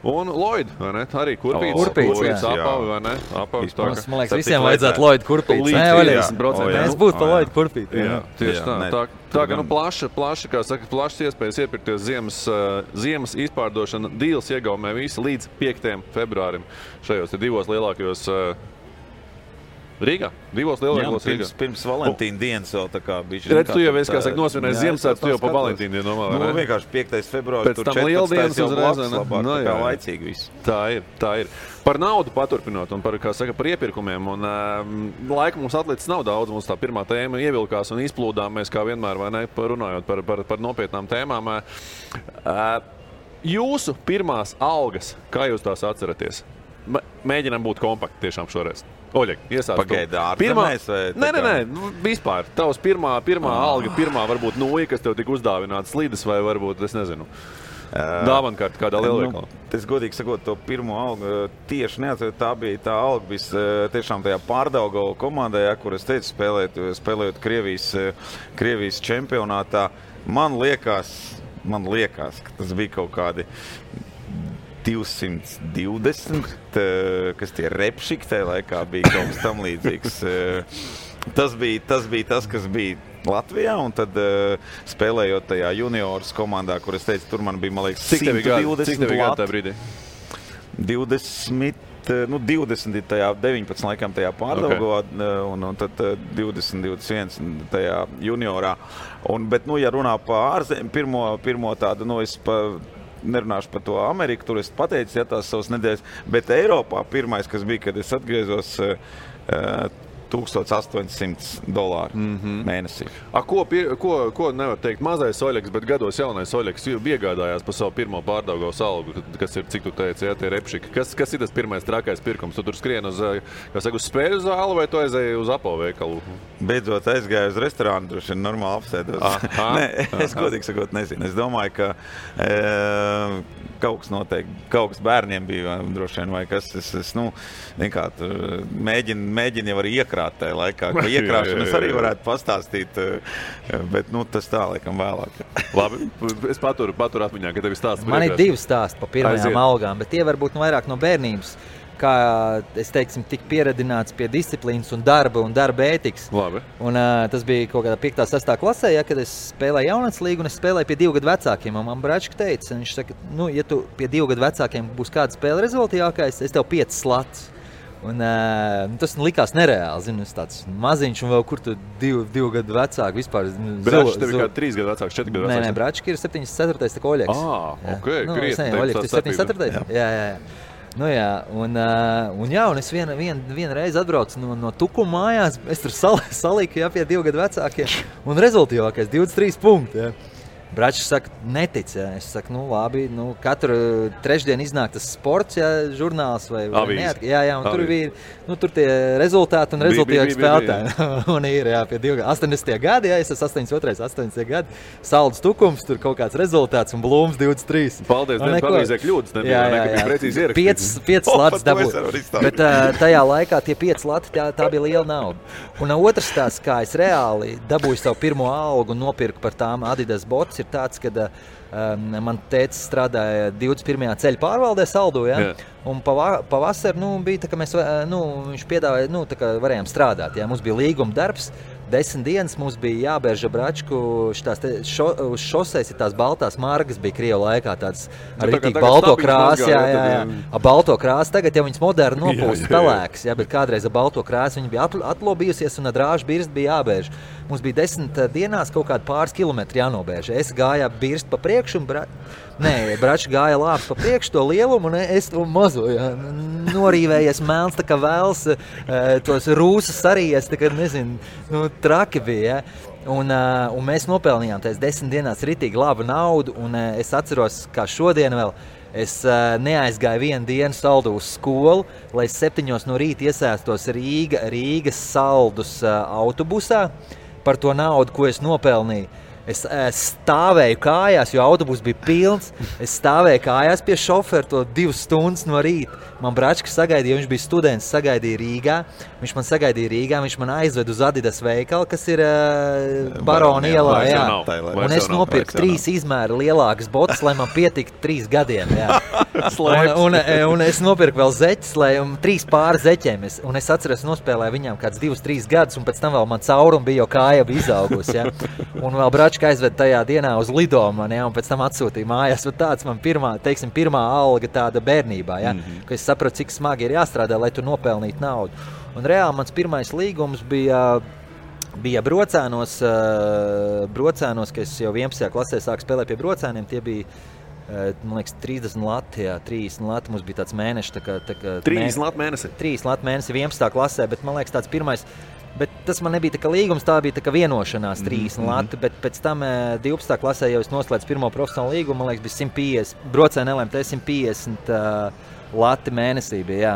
Un Lloyd, vai ne? Arī kurpīts. Kurpīts, apavi, vai ne? Apavis tā, man liekas, visiem vajadzētu Lloyd kurpīts. Līdz 50%. Mēs būtu pa Lloyd kurpīt. Jā, tieši tā. Tā kā plaši, kā saka, plašas iespējas iepirkties ziemas izpārdošana Deals iegaumē visi līdz 5. februārim šajos 2 lielākajos Rīgā, 2 lielākos Rīgā. Pirms Valentīna dienas vēl tā kā bišķi. Redz, tu jau esi, kā saka, nosvinējis Ziemassvētkus, tu jau pa Valentīna dienu nomā, vai ne? Nu, vienkārši 5. februāris, pēc tur tam 14. jau uzreiz, blakus labāk, tā kā laicīgi viss. Tā ir. Par naudu paturpinot un par, kā saka, par iepirkumiem. Un laika mums atlicis nav daudz, mums tā pirmā tēma ievilkās un izplūdām mēs kā vienmēr, vai ne, runājot par nopietnām tēmām. Jūsu pirmās algas, kā jūs tās atceraties? Mēģinām būt kompakti tiešām šoreiz. Oļeg, iesāc. Pagaidi, ārzemēs vai? Nē, vispār. Tavs pirmā alga, pirmā varbūt nūja, kas tev tika uzdāvināta slides vai varbūt, es nezinu, dāvankārta kādā lielveikalā. Es godīgi sakot, to pirmo algu tieši neatceru. Tā bija tā alga tiešām tajā Pārdaugava komandē, kur es teicu, spēlējot Krievijas čempionātā. Man liekas, ka tas bija kaut kādi 220, kas tie repšiki tajā laikā bija kaut kas tam līdzīgs. Tas bija tas, kas bija Latvijā, un tad spēlējot tajā juniors komandā, kur es teicu, tur man bija, man liekas, 120 Cik tev bija gadu tajā brīdī? 20 tajā 19 laikam tajā Pārdaugavā, un tad 20, 21 tajā juniorā. Bet, ja runā pa ārzem, pirmo tādu, es nerunāšu par to Ameriku, tur es pateicu, tās savas nedēļas, bet Eiropā pirmais, kas bija, kad es atgriezos, $1,800 mēnesī. Ko nevar teikt mazais Oļegs, bet gados jaunais Oļegs iegādājās par savu pirmo Pārdaugavas algu, kas ir, cik tu teici, tie repšiki. Kas ir tas pirmais trakais pirkums? Tu tur skrien uz spēļu zāli vai tu aizēji uz Apo veikalu? Beidzot aizgāju uz restorānu, droši vien normāli apsēdos. Nē, es godīgi sakot nezinu. Es domāju, ka kaut kas noteikti, kaut kas bērniem bija droši vien vai kas. Es mēģinu jau arī iekrāt tajā laikā, ka iekrāšanas arī varētu pastāstīt, bet tas tā laikam vēlāk. Labi, es paturu atmiņā, ka tev ir stāsts. Man ir 2 stāsti pa pirmajām algām, bet tie varbūt vairāk no bērnības. Kā es teiksim, tik pieradināts pie disciplīnas un darba ētikas. Labi. Un tas bija kaut kādā 5. 6. klasē, kad es spēlēju jaunats līgu un es spēlēju pie 2 gadu vecākiem. Un man bračka teica, viņš saka, ja tu pie 2 gadu vecākiem būs kāda spēle rezultātīgākais, es tev 5 slats. Un tas likās nereāli, zinu, es tāds maziņš un vēl kur tu 2 gadu vecāki vispār. Bračka tev ir kā 3 gadu vecāks, 4 gadu vecāks? Nē, bračka ir 74. tā kā Oļegs. Krietni. Oļegs ir 74. Jā. Un es vienu reizi atbraucu no Tukuma mājās, es tur salīku pie 2 gadu vecākiem, un rezultātīgākais 23 punkti. Bračs saka, netic. Es saku, labi, katru trešdienu iznāk tas sports, žurnāls vai neat. Jā, un tur bija, tur tie rezultāti un rezultāti spēlētāji. Un ir, pie 80. gadi, es esmu 82. gadi, Saldus Tukums, tur kaut kāds rezultāts un Blūms 23. Paldies, nepavīzē kļūdas, nebija precīzi ierakstīts. 5 slats dabūju. Bet tajā laikā tie 5 slati, tā bija liela nauda. Un otrs tās, kā es reāli dabūju savu pirmo algu un nopirku par tām Adidas bots, ir tāds, kad man tētis strādāja 21. ceļa pārvaldē Saldū, un pavasar, bija tā, ka mēs, viņš piedāvāja, tā kā varējām strādāt, mums bija līguma darbs, 10 dienas mums bija jābērža bračku, uz šoseis ir tās baltās margas, bija Krievu laikā tāds ar ritīgi balto krāsu, balto krāsu, tagad jau viņas moderni nopūst pelēks, bet kādreiz ar balto krāsu viņa bija atlobījusies un ar drāžu birst bija jābērž. mums bija 10 dienās kaut kādi pāris kilometri jānobēž. Es gāju birst pa priekšu, un Bračs gāja lāps pa priekšu to lielumu, un es to mazo, norīvējies melns, tā kā vēls, tos rūsas sarījies, tā kā, nezinu, traki bija, Un mēs nopelnījām tās 10 dienās ritīgi labu naudu, un es atceros, kā šodien vēl, es neaizgāju vienu dienu saldu uz skolu, lai 7 no rīta iesēstos Rīgas saldus autobusā par to naudu, ko es nopelnīju. Es stāvēju kājās, jo autobus bija pilns. Es stāvēju kājās pie šoferu to 2 stundas no rīta. Man Bračka sagaidīja, viņš bija students, sagaidīja Rīgā. Viņš man sagaidīja Rīgā, viņš man aizved uz Adidas veikalu, kas ir Barona ielā. Un es nopirku 3 izmēra lielākas botas, lai man pietiktu 3 gadiem. Un es nopirku vēl zeķes, 3 pāri zeķiem. Un es atceros, nospēlēju viņām kāds 2-3 gadus, un pēc tam vēl man caurumi bija, jo kāja bija izaugusi. Un vēl Bračka aizved tajā dienā uz lidojumu, un pēc tam atsūtīja mājās. Tāds man pirmā alga tāda bērnībā, ka es sapratu, cik smagi ir jāstrādā, lai tu nopelnītu naudu. Un reāli mans pirmais līgums bija Brocēnos, ka es jau 11. klasē sāku spēlēt pie Brocēniem. Tie bija, man liekas, 30 lati, 30 lati. Mums bija tāds mēnešs. 30 lati mēnesi? 30 lati mēnesi 11. klasē, bet man liekas tāds pirmais. Bet tas man nebija tā kā līgums, tā bija tā kā vienošanās 30 lati, bet pēc tam 12. klasē jau es noslēdzu pirmo profesionālu līgumu, man liekas, bija 150, Brocēni LMT 150 lati mēnesī bija, jā.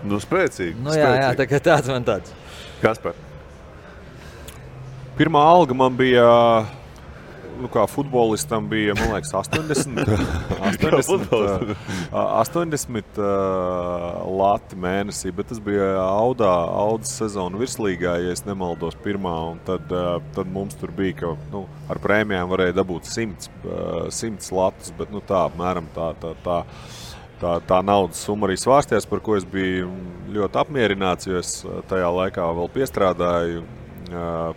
Nu, spēcīgi. Nu, jā, tā kā tāds man tāds. Kaspar? Pirmā alga man bija, kā futbolistam bija, man liekas, 80 lati mēnesī, bet tas bija Audas sezonu virslīgā, ja es nemaldos pirmā, un tad mums tur bija, ka ar prēmijām varēja dabūt 100 latus, bet tā apmēram tā naudas summa arī svārstījās, par ko es biju ļoti apmierināts, jo es tajā laikā vēl piestrādāju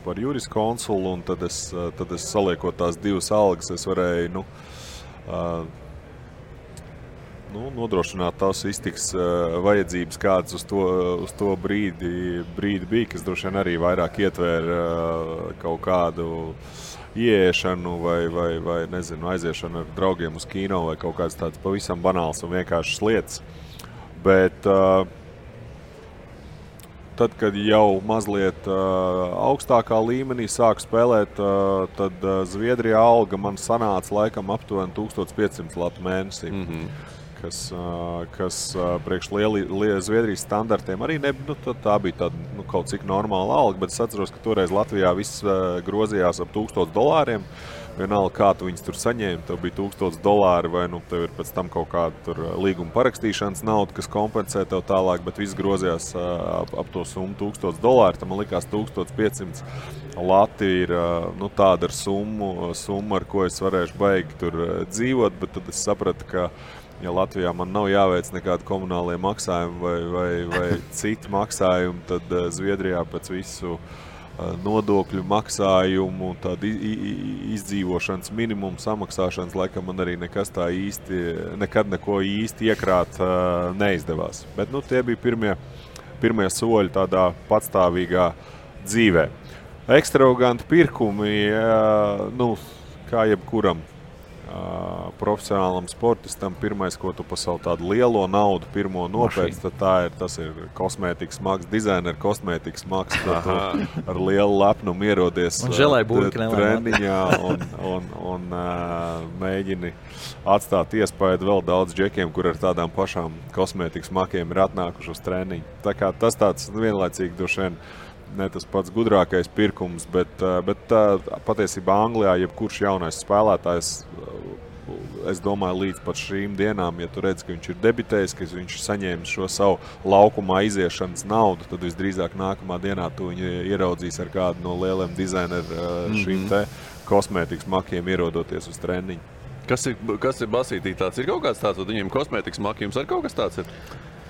par juriskonsulu, un tad es saliekot tās 2 algas, es varēju nodrošināt tās iztiks vajadzības, kādas uz to brīdi bija, kas droši vien arī vairāk ietvēra kaut kādu ieiešanu vai nezinu, aiziešanu ar draugiem uz kino vai kaut kāds tāds pavisam banāls un vienkāršas lietas. Bet tad, kad jau mazliet augstākā līmenī sāku spēlēt, tad Zviedrijā alga man sanāca laikam aptuveni 1500 latu mēnesī, kas priekš Zviedrijas standartiem arī tā bija tāda kaut cik normāla alga, bet es atceros, ka toreiz Latvijā viss grozījās ap $1000. Vienalga, kā tu viņus tur saņēmi, tev bija $1000 vai tev ir pēc tam kaut kāda tur līguma parakstīšanas nauda, kas kompensē tev tālāk, bet viss grozījās ap to summu $1000. Tam man likās 1500 lati ir tāda ar summu, ar ko es varēšu baigi tur dzīvot, bet tad es sapratu, ka ja Latvijā man nav jāveic nekādi komunālie maksājumi vai citi maksājumi, tad Zviedrijā pēc visu nodokļu maksājumu, tādu izdzīvošanas minimumu samaksāšanas, laikam man arī nekas tā nekad neko īsti iekrāt neizdevās. Bet tie bija pirmie soļi tādā patstāvīgā dzīvē. Ekstravaganti pirkumi, kā jebkuram profesionālam sportistam, pirmais, ko tu pa savu tādu lielo naudu pirmo nopēc, tad tas ir kosmētikas maks, dizaineru kosmētikas maks, tad tu ar lielu lepnumu ierodies treniņā un mēģini atstāt iespēju vēl daudz džekiem, kur ar tādām pašām kosmētikas makiem ir atnākuši uz treniņu. Tā kā tas tāds vienlaicīgi droši vien ne tas pats gudrākais pirkums, bet patiesībā Anglijā jebkurš jaunais spēlētājs, es domāju, līdz pat šīm dienām, ja tu redz, ka viņš ir debitējis, ka viņš ir saņēmis šo savu laukumā iziešanas naudu, tad visdrīzāk nākamā dienā tu viņu ieraudzīs ar kādu no lieliem dizaineru šīm te kosmētikas makiem ierodoties uz treniņu. Kas ir Basītī tāds? Ir kaut kāds tāds, vai viņiem kosmētikas maki, jums ar kaut kas tāds ir?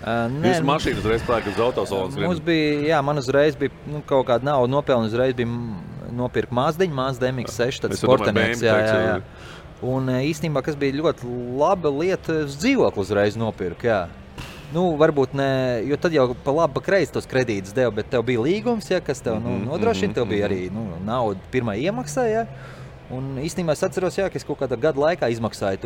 Jūs mašīnu uzreiz pērkat uz autosalons? Mums bija, man uzreiz bija kaut kāda nauda nopelna, uzreiz bija nopirkt Mazdiņu, Mazda MX-6, tad sportenieks, jā. Un īstenībā, kas bija ļoti laba lieta, dzīvokli uzreiz nopirkt, jā. Nu, varbūt ne, jo tad jau pa labi, pa kreisi tos kredītus deva, bet tev bija līgums, ja, kas tev nodrošina, tev bija arī nauda pirmā iemaksā, ja. Un īstenībā es atceros, jā, ka es kaut kādā gada laikā izmaksāju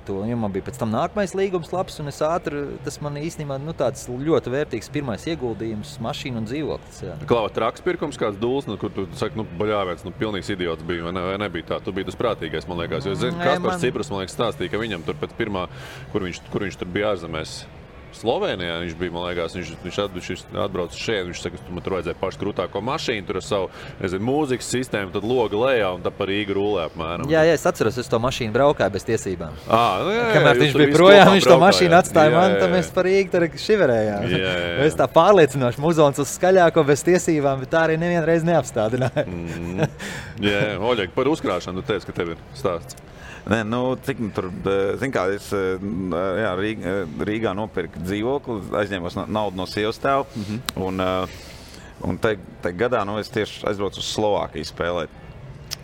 to, jo man bija pēc tam nākamais līgums labs, un es ātri, tas man īstenībā tāds ļoti vērtīgs pirmais ieguldījums, mašīna un dzīvoklis. Jā. Klāva traks pirkums kāds dūls, kur tu saki, baļāvēts, pilnīgs idiots bija, vai nebija tā? Tu biji tas prātīgais, man liekas, jo es zinu, Kaspars Ciprus, man liekas, stāstīja, ka viņam tur pēc pirmā, kur viņš tur bija ārzemēs, Slovenijā viņš bija, man liekas, viņš atbrauca šeit, viņš saka, man tur vajadzēja pašu krūtāko mašīnu, tur ar savu, mūzikas sistēmu, tad loga lejā un tad par Rīgu rulē apmēram. Jā, es atceros, es to mašīnu braukāju bez tiesībām. Jā, kamēr viņš bija projām, viņš to mašīnu atstāja man, tad mēs par Rīgu tur šiverējām. Es tā pārliecinoši muzons uz skaļāko bez tiesībām, bet tā arī nevienreiz neapstādināja. Jā, Oļeg, par uzkrāšanu tu teici, ka tev ir stāsts. Nē, cik tur, zin kā, es Rīgā nopirku dzīvokli, aizņēmos naudu no sievas tēva, un te gadā, es tieši aizbraucu uz Slovākiju spēlēt.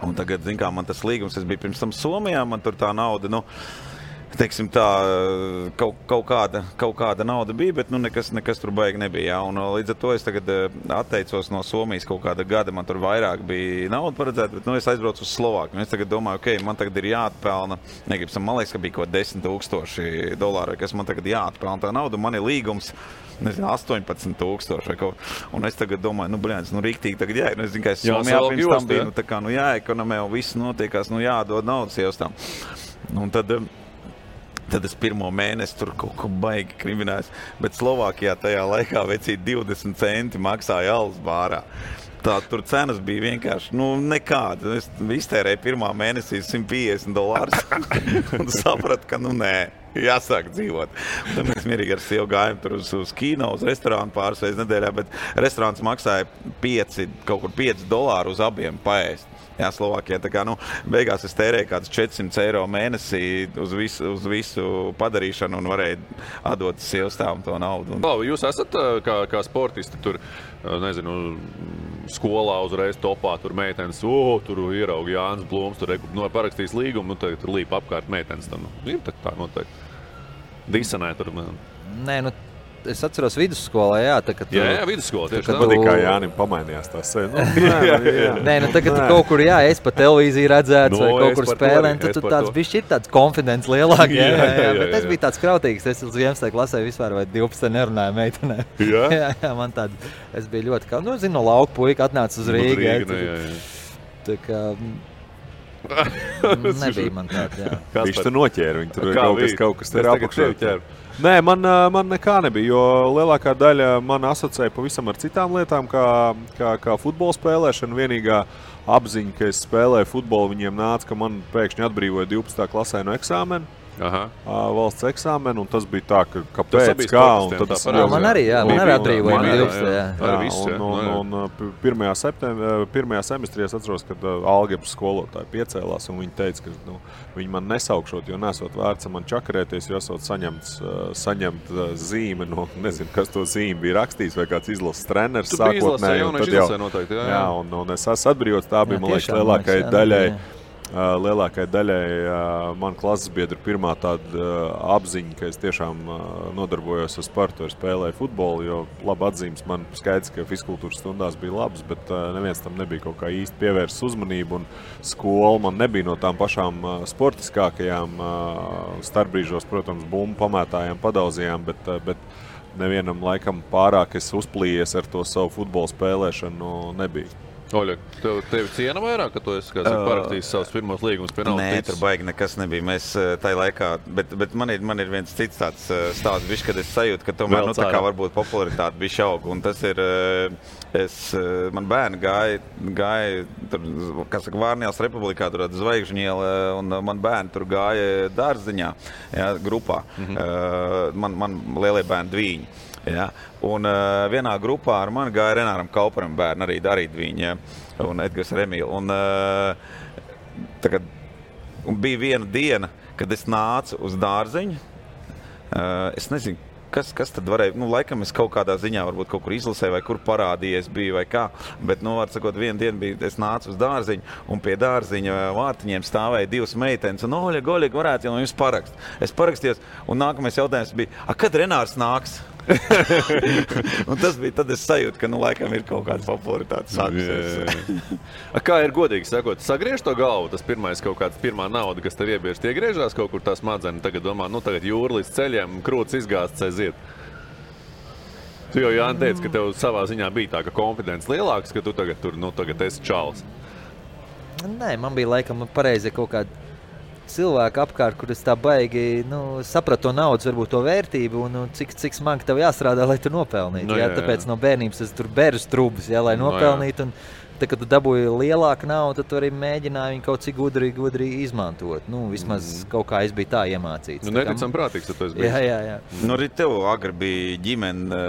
Un tagad, zin kā, man tas līgums, es biju pirms tam Somijā, man tur tā nauda, teiksim tā, kaut kāda nauda bija, bet nekas tur baigi nebija. Jā. Un līdz ar to es tagad atteicos no Somijas kaut kāda gada, man tur vairāk bija nauda paredzēta, bet es aizbraucu uz Slovākiju. Es tagad domāju, man tagad ir jāatpelna, man liekas, ka bija kaut $10,000, kas man tagad jāatpelna tā nauda, man ir līgums, 18,000 un es tagad domāju, riktīgi tagad jāiet. Es zinu, ka es Somijā pirms tam biju, jāekonomē un viss notiekās, jādod naudas iestām. Un tad es pirmo mēnesi tur kaut ko baigi kriminājos, bet Slovākijā tajā laikā vecīt 20 centi maksāja alus bārā. Tā tur cenas bija vienkārši, nekāda. Es iztērēju pirmā mēnesī $150 un sapratu, ka nē, jāsāk dzīvot. Tad mēs mierīgi ar sievu gājām tur uz kino, uz restorānu pāris reizes nedēļā, bet restorāns maksāja kaut kur $5 uz abiem paēst. Jā, Slovākijā. Tā kā, beigās es tērēju kādus €400 mēnesī uz visu padarīšanu un varēju atdot sievstāvam to naudu. Jūs esat kā sportisti tur, skolā uzreiz topā, tur meitenes, tur ierauga Jānis Blūms, tur parakstīs līgumu, tad tur līpa apkārt meitenes. Ir tā noteikti. Disanē tur. Nē, es atceros vidusskolā, jā. Jā, vidusskolā tieši tā. Patīk, kā Jānim pamainījās tās. Nē, tagad kaut kur, es pa televīziju redzēts vai kaut kur spēlēm, tad tāds bišķi ir tāds konfidents lielāk, jā. Bet es biju tāds krautīgs, es uz 11. klasē vispār vai 12 nerunāju meitenē. Jā, man tāda, es biju ļoti, no lauka puika atnāca uz Rīgu. Tā kā nebija man tāda, jā. Viņš tur noķēra, viņi tur kaut kas te ir apakšā. Nē, man nekā nebija, jo lielākā daļa man asociēja pavisam ar citām lietām, kā futbola spēlēšana. Vienīgā apziņa, ka es spēlēju futbolu, viņiem nāca, ka man pēkšņi atbrīvoja 12. klasē no eksāmena. Valsts eksāmenu, un tas bija tā, ka kāpēc, kā, un tad es... Man arī atbrīvoja no 12. Un 1. semestrī es atceros, kad algebras skolotāji piecēlās, un viņi teica, ka viņi man nesaukšot, jo nesot vērts man čakarēties, jo esot saņemt zīme, nezinu, kas to zīme bija rakstījis, vai kāds izlases treneris sākotnēji. Jā, un es esmu atbrīvots, tā bija, man liekas, lielākai daļai man klases biedru pirmā tāda apziņa, ka es tiešām nodarbojos ar sportu, spēlēju futbolu, jo labi atzīmes man skaidrs, ka fizkultūras stundās bija labs, bet neviens tam nebija kaut kā īsti pievērsts uzmanību, un skola man nebija no tām pašām sportiskākajām starpbrīžos, protams, bumbu pamētājām, padauzījām, bet nevienam laikam pārāk es uzplījies ar to savu futbolu spēlēšanu nebija. Oļeg, tevi ciena vairāk, ka tu esi parakstījis savus pirmos līgumus pie naudas? Nē, tur baigi nekas nebija. Mēs tajā laikā, bet man ir viens cits tāds stāsts, kad es sajūtu, ka tomēr tā kā varbūt popularitāte bija šauga. Un tas ir, man bērni gāja tur, kā saka, Vārnijās Republikā, tur Zvaigžņiela, un man bērni tur gāja dārziņā, jā, grupā. Man lielie bērni Dvīņi. Ja, un vienā grupā ar mani gāja Renāram Kauparam bērni, arī Dvīņi, ja, un Edgars Remīla. Un bija viena diena, kad es nācu uz dārziņu. Es nezinu, kas tad varēja, laikam es kaut kādā ziņā varbūt kaut kur izlasēju vai kur parādījies biju vai kā, bet, var sakot, vienu dienu bija, es nācu uz dārziņu un pie dārziņa vārtiņiem stāvēja 2 meitenes un Oļega, varētu jau jums parakst. Es parakstījos un nākamais jautājums bija, kad Renārs nāks? Un tas bija, tad es sajūtu, ka, laikam ir kaut kāda popularitāte sākusies. Kā ir godīgi sakot, sagriež to galvu, tas pirmais kaut kāds pirmā nauda, kas tev iebiež, tie griežās kaut kur tās madzeni, tagad domā, tagad jūra līdz ceļiem, krūts izgāsts aiziet. Tu jau Jāni teica, ka tev savā ziņā bija tā, ka konfidents lielāks, ka tu tagad tur, tagad esi čalis. Nē, man bija laikam pareizi kaut kāda cilvēki apkārt, kur es tā baigi sapratu to naudas, varbūt to vērtību un cik smagi tev jāstrādā, lai tu nopelnītu. Tāpēc no bērnības es tur bēru strūbas, lai nopelnītu. Un tad, kad tu dabūji lielāku naudu, tad tu arī mēģināji viņu kaut cik gudri izmantot. Vismaz kaut kā es biju tā iemācīts. Neticam prātīgs, tad tu esi bijis. Jā. Arī tev agri bija ģimene,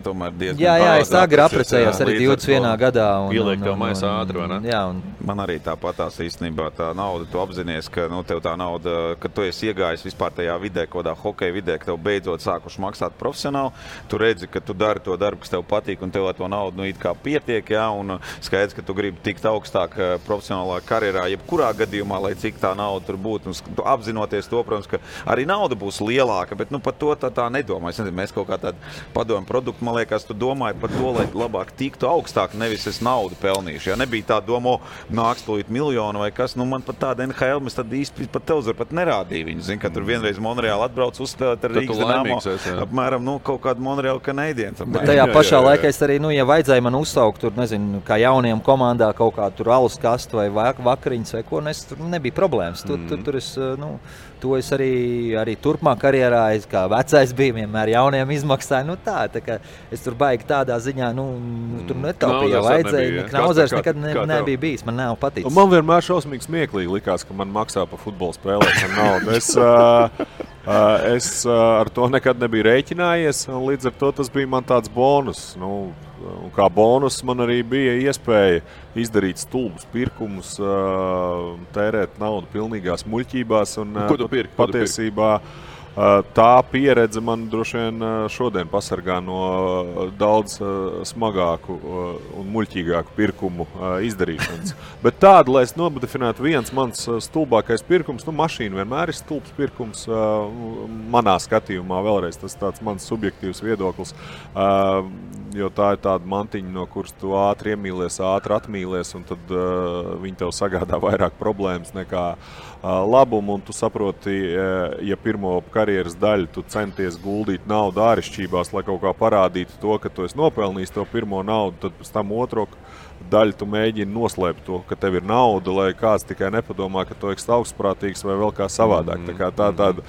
tomēr diezgan Jā, es agri apprecējos arī 21. gadā. Ieliek tev maisā ātri, vai ne? Jā. Man arī tāpatās īstenībā tā nauda, tu apzinies, ka tev tā nauda, kad tu esi iegājis vispār tajā vidē, kodā hokeja vidē, ka tev beidzot sākuši maksāt profesionāli, tu redzi, ka tu dari to darbu, kas tev patīk, un tev ar to naudu it kā pietiek, un skaidrs, ka tu gribi tikt augstāk profesionālā karjerā, jebkurā gadījumā, lai cik tā nauda tur būtu. Un apzinoties to, protams, ka arī nauda būs lielāka, bet par to tā nedomā. Es nezinu, mēs kaut kā tādu padomu produktu, man liekas, tu domāji par to, lai labāk tiktu augstāk, nevis es naudu pelnīšu. Ja nebija tā doma, nāks tūlīt miljonu vai kas, man pat tāda NHL, mēs tad īsti pat televizori pat nerādīja viņu. Zin, ka tur vienreiz Monreāli atbrauc uzspēlēt ar Rīgas Dinamo, apmēram, kaut kādu Monreāli Canadiens. Bet tajā pašā laikā es arī, ja vajadzēja man uzsaukt tur, nezinu, kā jauniem komandā kaut kā tur alus kastu vai vakariņas vai ko, tur nebija problēmas. Tur es arī turpmāk karjerā, kā vecais bija, vienmēr jauniem izmaksāju. Tā kā es tur baigi tādā ziņā, tur netaupīju, vajadzēja. Knauzers nekad nebija bijis, man nav paticis. Man vienmēr šausmīgi smieklīgi likās, ka man maksā par futbolu spēlēšanu naudu. Es ar to nekad nebiju rēķinājies, un līdz ar to tas bija man tāds bonus. Un kā bonus man arī bija iespēja izdarīt stulbus pirkumus, tērēt naudu pilnīgās muļķībās. Ko tu pirki? Patiesībā tā pieredze man droši vien šodien pasargā no daudz smagāku un muļķīgāku pirkumu izdarīšanas. Bet tādu, lai es nodefinētu viens mans stulbākais pirkums, mašīna vienmēr ir stulbs pirkums manā skatījumā, vēlreiz tas tāds mans subjektīvs viedoklis. Jo tā ir tāda mantiņa, no kuras tu ātri iemīlies, ātri atmīlies, un tad viņi tev sagādā vairāk problēmas nekā labumu, un tu saproti, ja pirmo karjeras daļu tu centies guldīt naudu āršķībās, lai kaut kā parādītu to, ka tu esi nopelnījis to pirmo naudu, tad pēc tam otro daļu tu mēģini noslēpt to, ka tev ir nauda, lai kāds tikai nepadomā, ka tu esi augstprātīgs vai vēl kā savādāk. Tā kā tāda,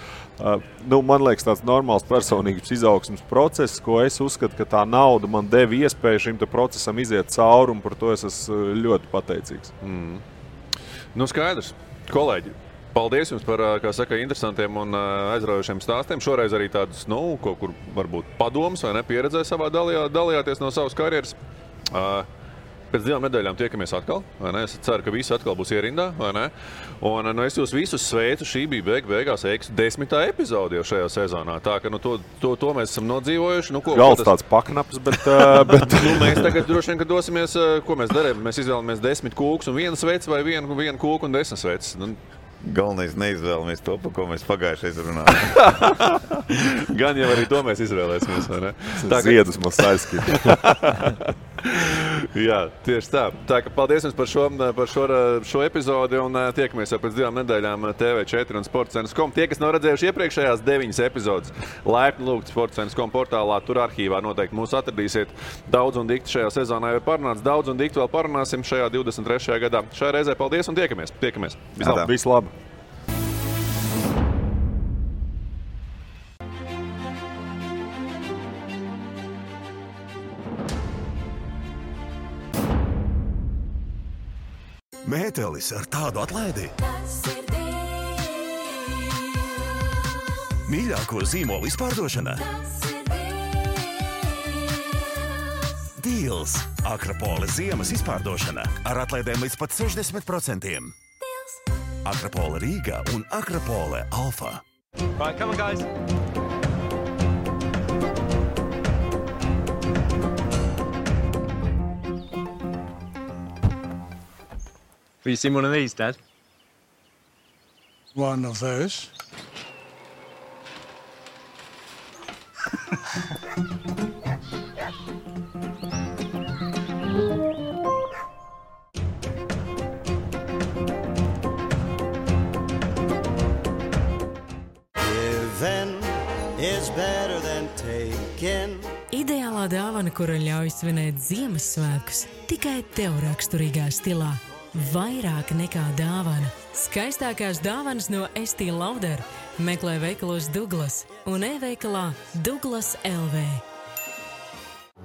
man liekas, tāds normāls personīgas izaugsmes process, ko es uzskatu, ka tā nauda man deva iespēju šim procesam iziet cauri, un par to es esmu ļoti pateicīgs. Skaidrs. Kolēģi, paldies jums par, kā saka, interesantiem un aizraujošiem stāstiem. Šoreiz arī tādus, kaut kur varbūt padomus vai nepieredzē savā dalījāties no savas karjeras. Pēc 2 nedēļām tiekamies atkal, vai ne? Es ceru, ka visi atkal būs ierindā, vai ne? Un es jūs visus sveicu, šī bija beigās 10. epizode jau šajā sezonā. Tā, ka to mēs esam nodzīvojuši. Gals tāds paknaps, bet... mēs tagad droši vien, ka dosimies, ko mēs darām. Mēs izvēlamies 10 kūkus un 1 sveici vai 1 kūku un 10 sveicis. Galvenais neizvēlamies to, par ko mēs pagājušais runājām. Gan jau arī to mēs izvēlēsimies, vai ne? Ziedus mums aizskita. Jā, tieši tā. Tā ka paldies jums par šo epizodi un tiekamies jau pēc 2 nedēļām TV4 un sportcentrs.com. Tie, kas nav redzējuši iepriekšējās 9 epizodes, laipni lūgt sportcentrs.com portālā, tur arhīvā noteikti mūs atradīsiet. Daudz un dikti šajā sezonā jau parunāts, daudz un dikti vēl parunāsim šajā 23. gadā. Šajā reizē paldies un tiekamies. Vislabāk. Mētelis ar tādu atlaidi. Mīļāko zīmolu izpārdošana. Deals. Akropole ziemas izpārdošana ar atlaidēm līdz pat 60%. Akropole Rīga un Akropole Alfa. Right, come on, guys. Will you see one of these, Dad? One of those. Giving is better than taking. Ideālā dāvana, kura ļauj svinēt Ziemassvētkus, tikai tev raksturīgā stilā. Vairāk nekā dāvana. Skaistākās dāvanas no Estī Lauder. Meklē veikalos Douglas un e-veikalā Douglas LV.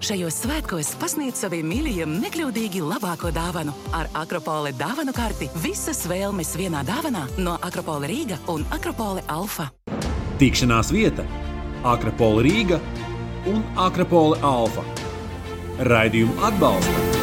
Šajos svētkos pasniedz saviem mīļajiem nekļūdīgi labāko dāvanu. Ar Akropole dāvanu karti visas vēlmes vienā dāvanā no Akropole Rīga un Akropole Alfa. Tikšanās vieta Akropole Rīga un Akropole Alfa. Raidījumu atbalsta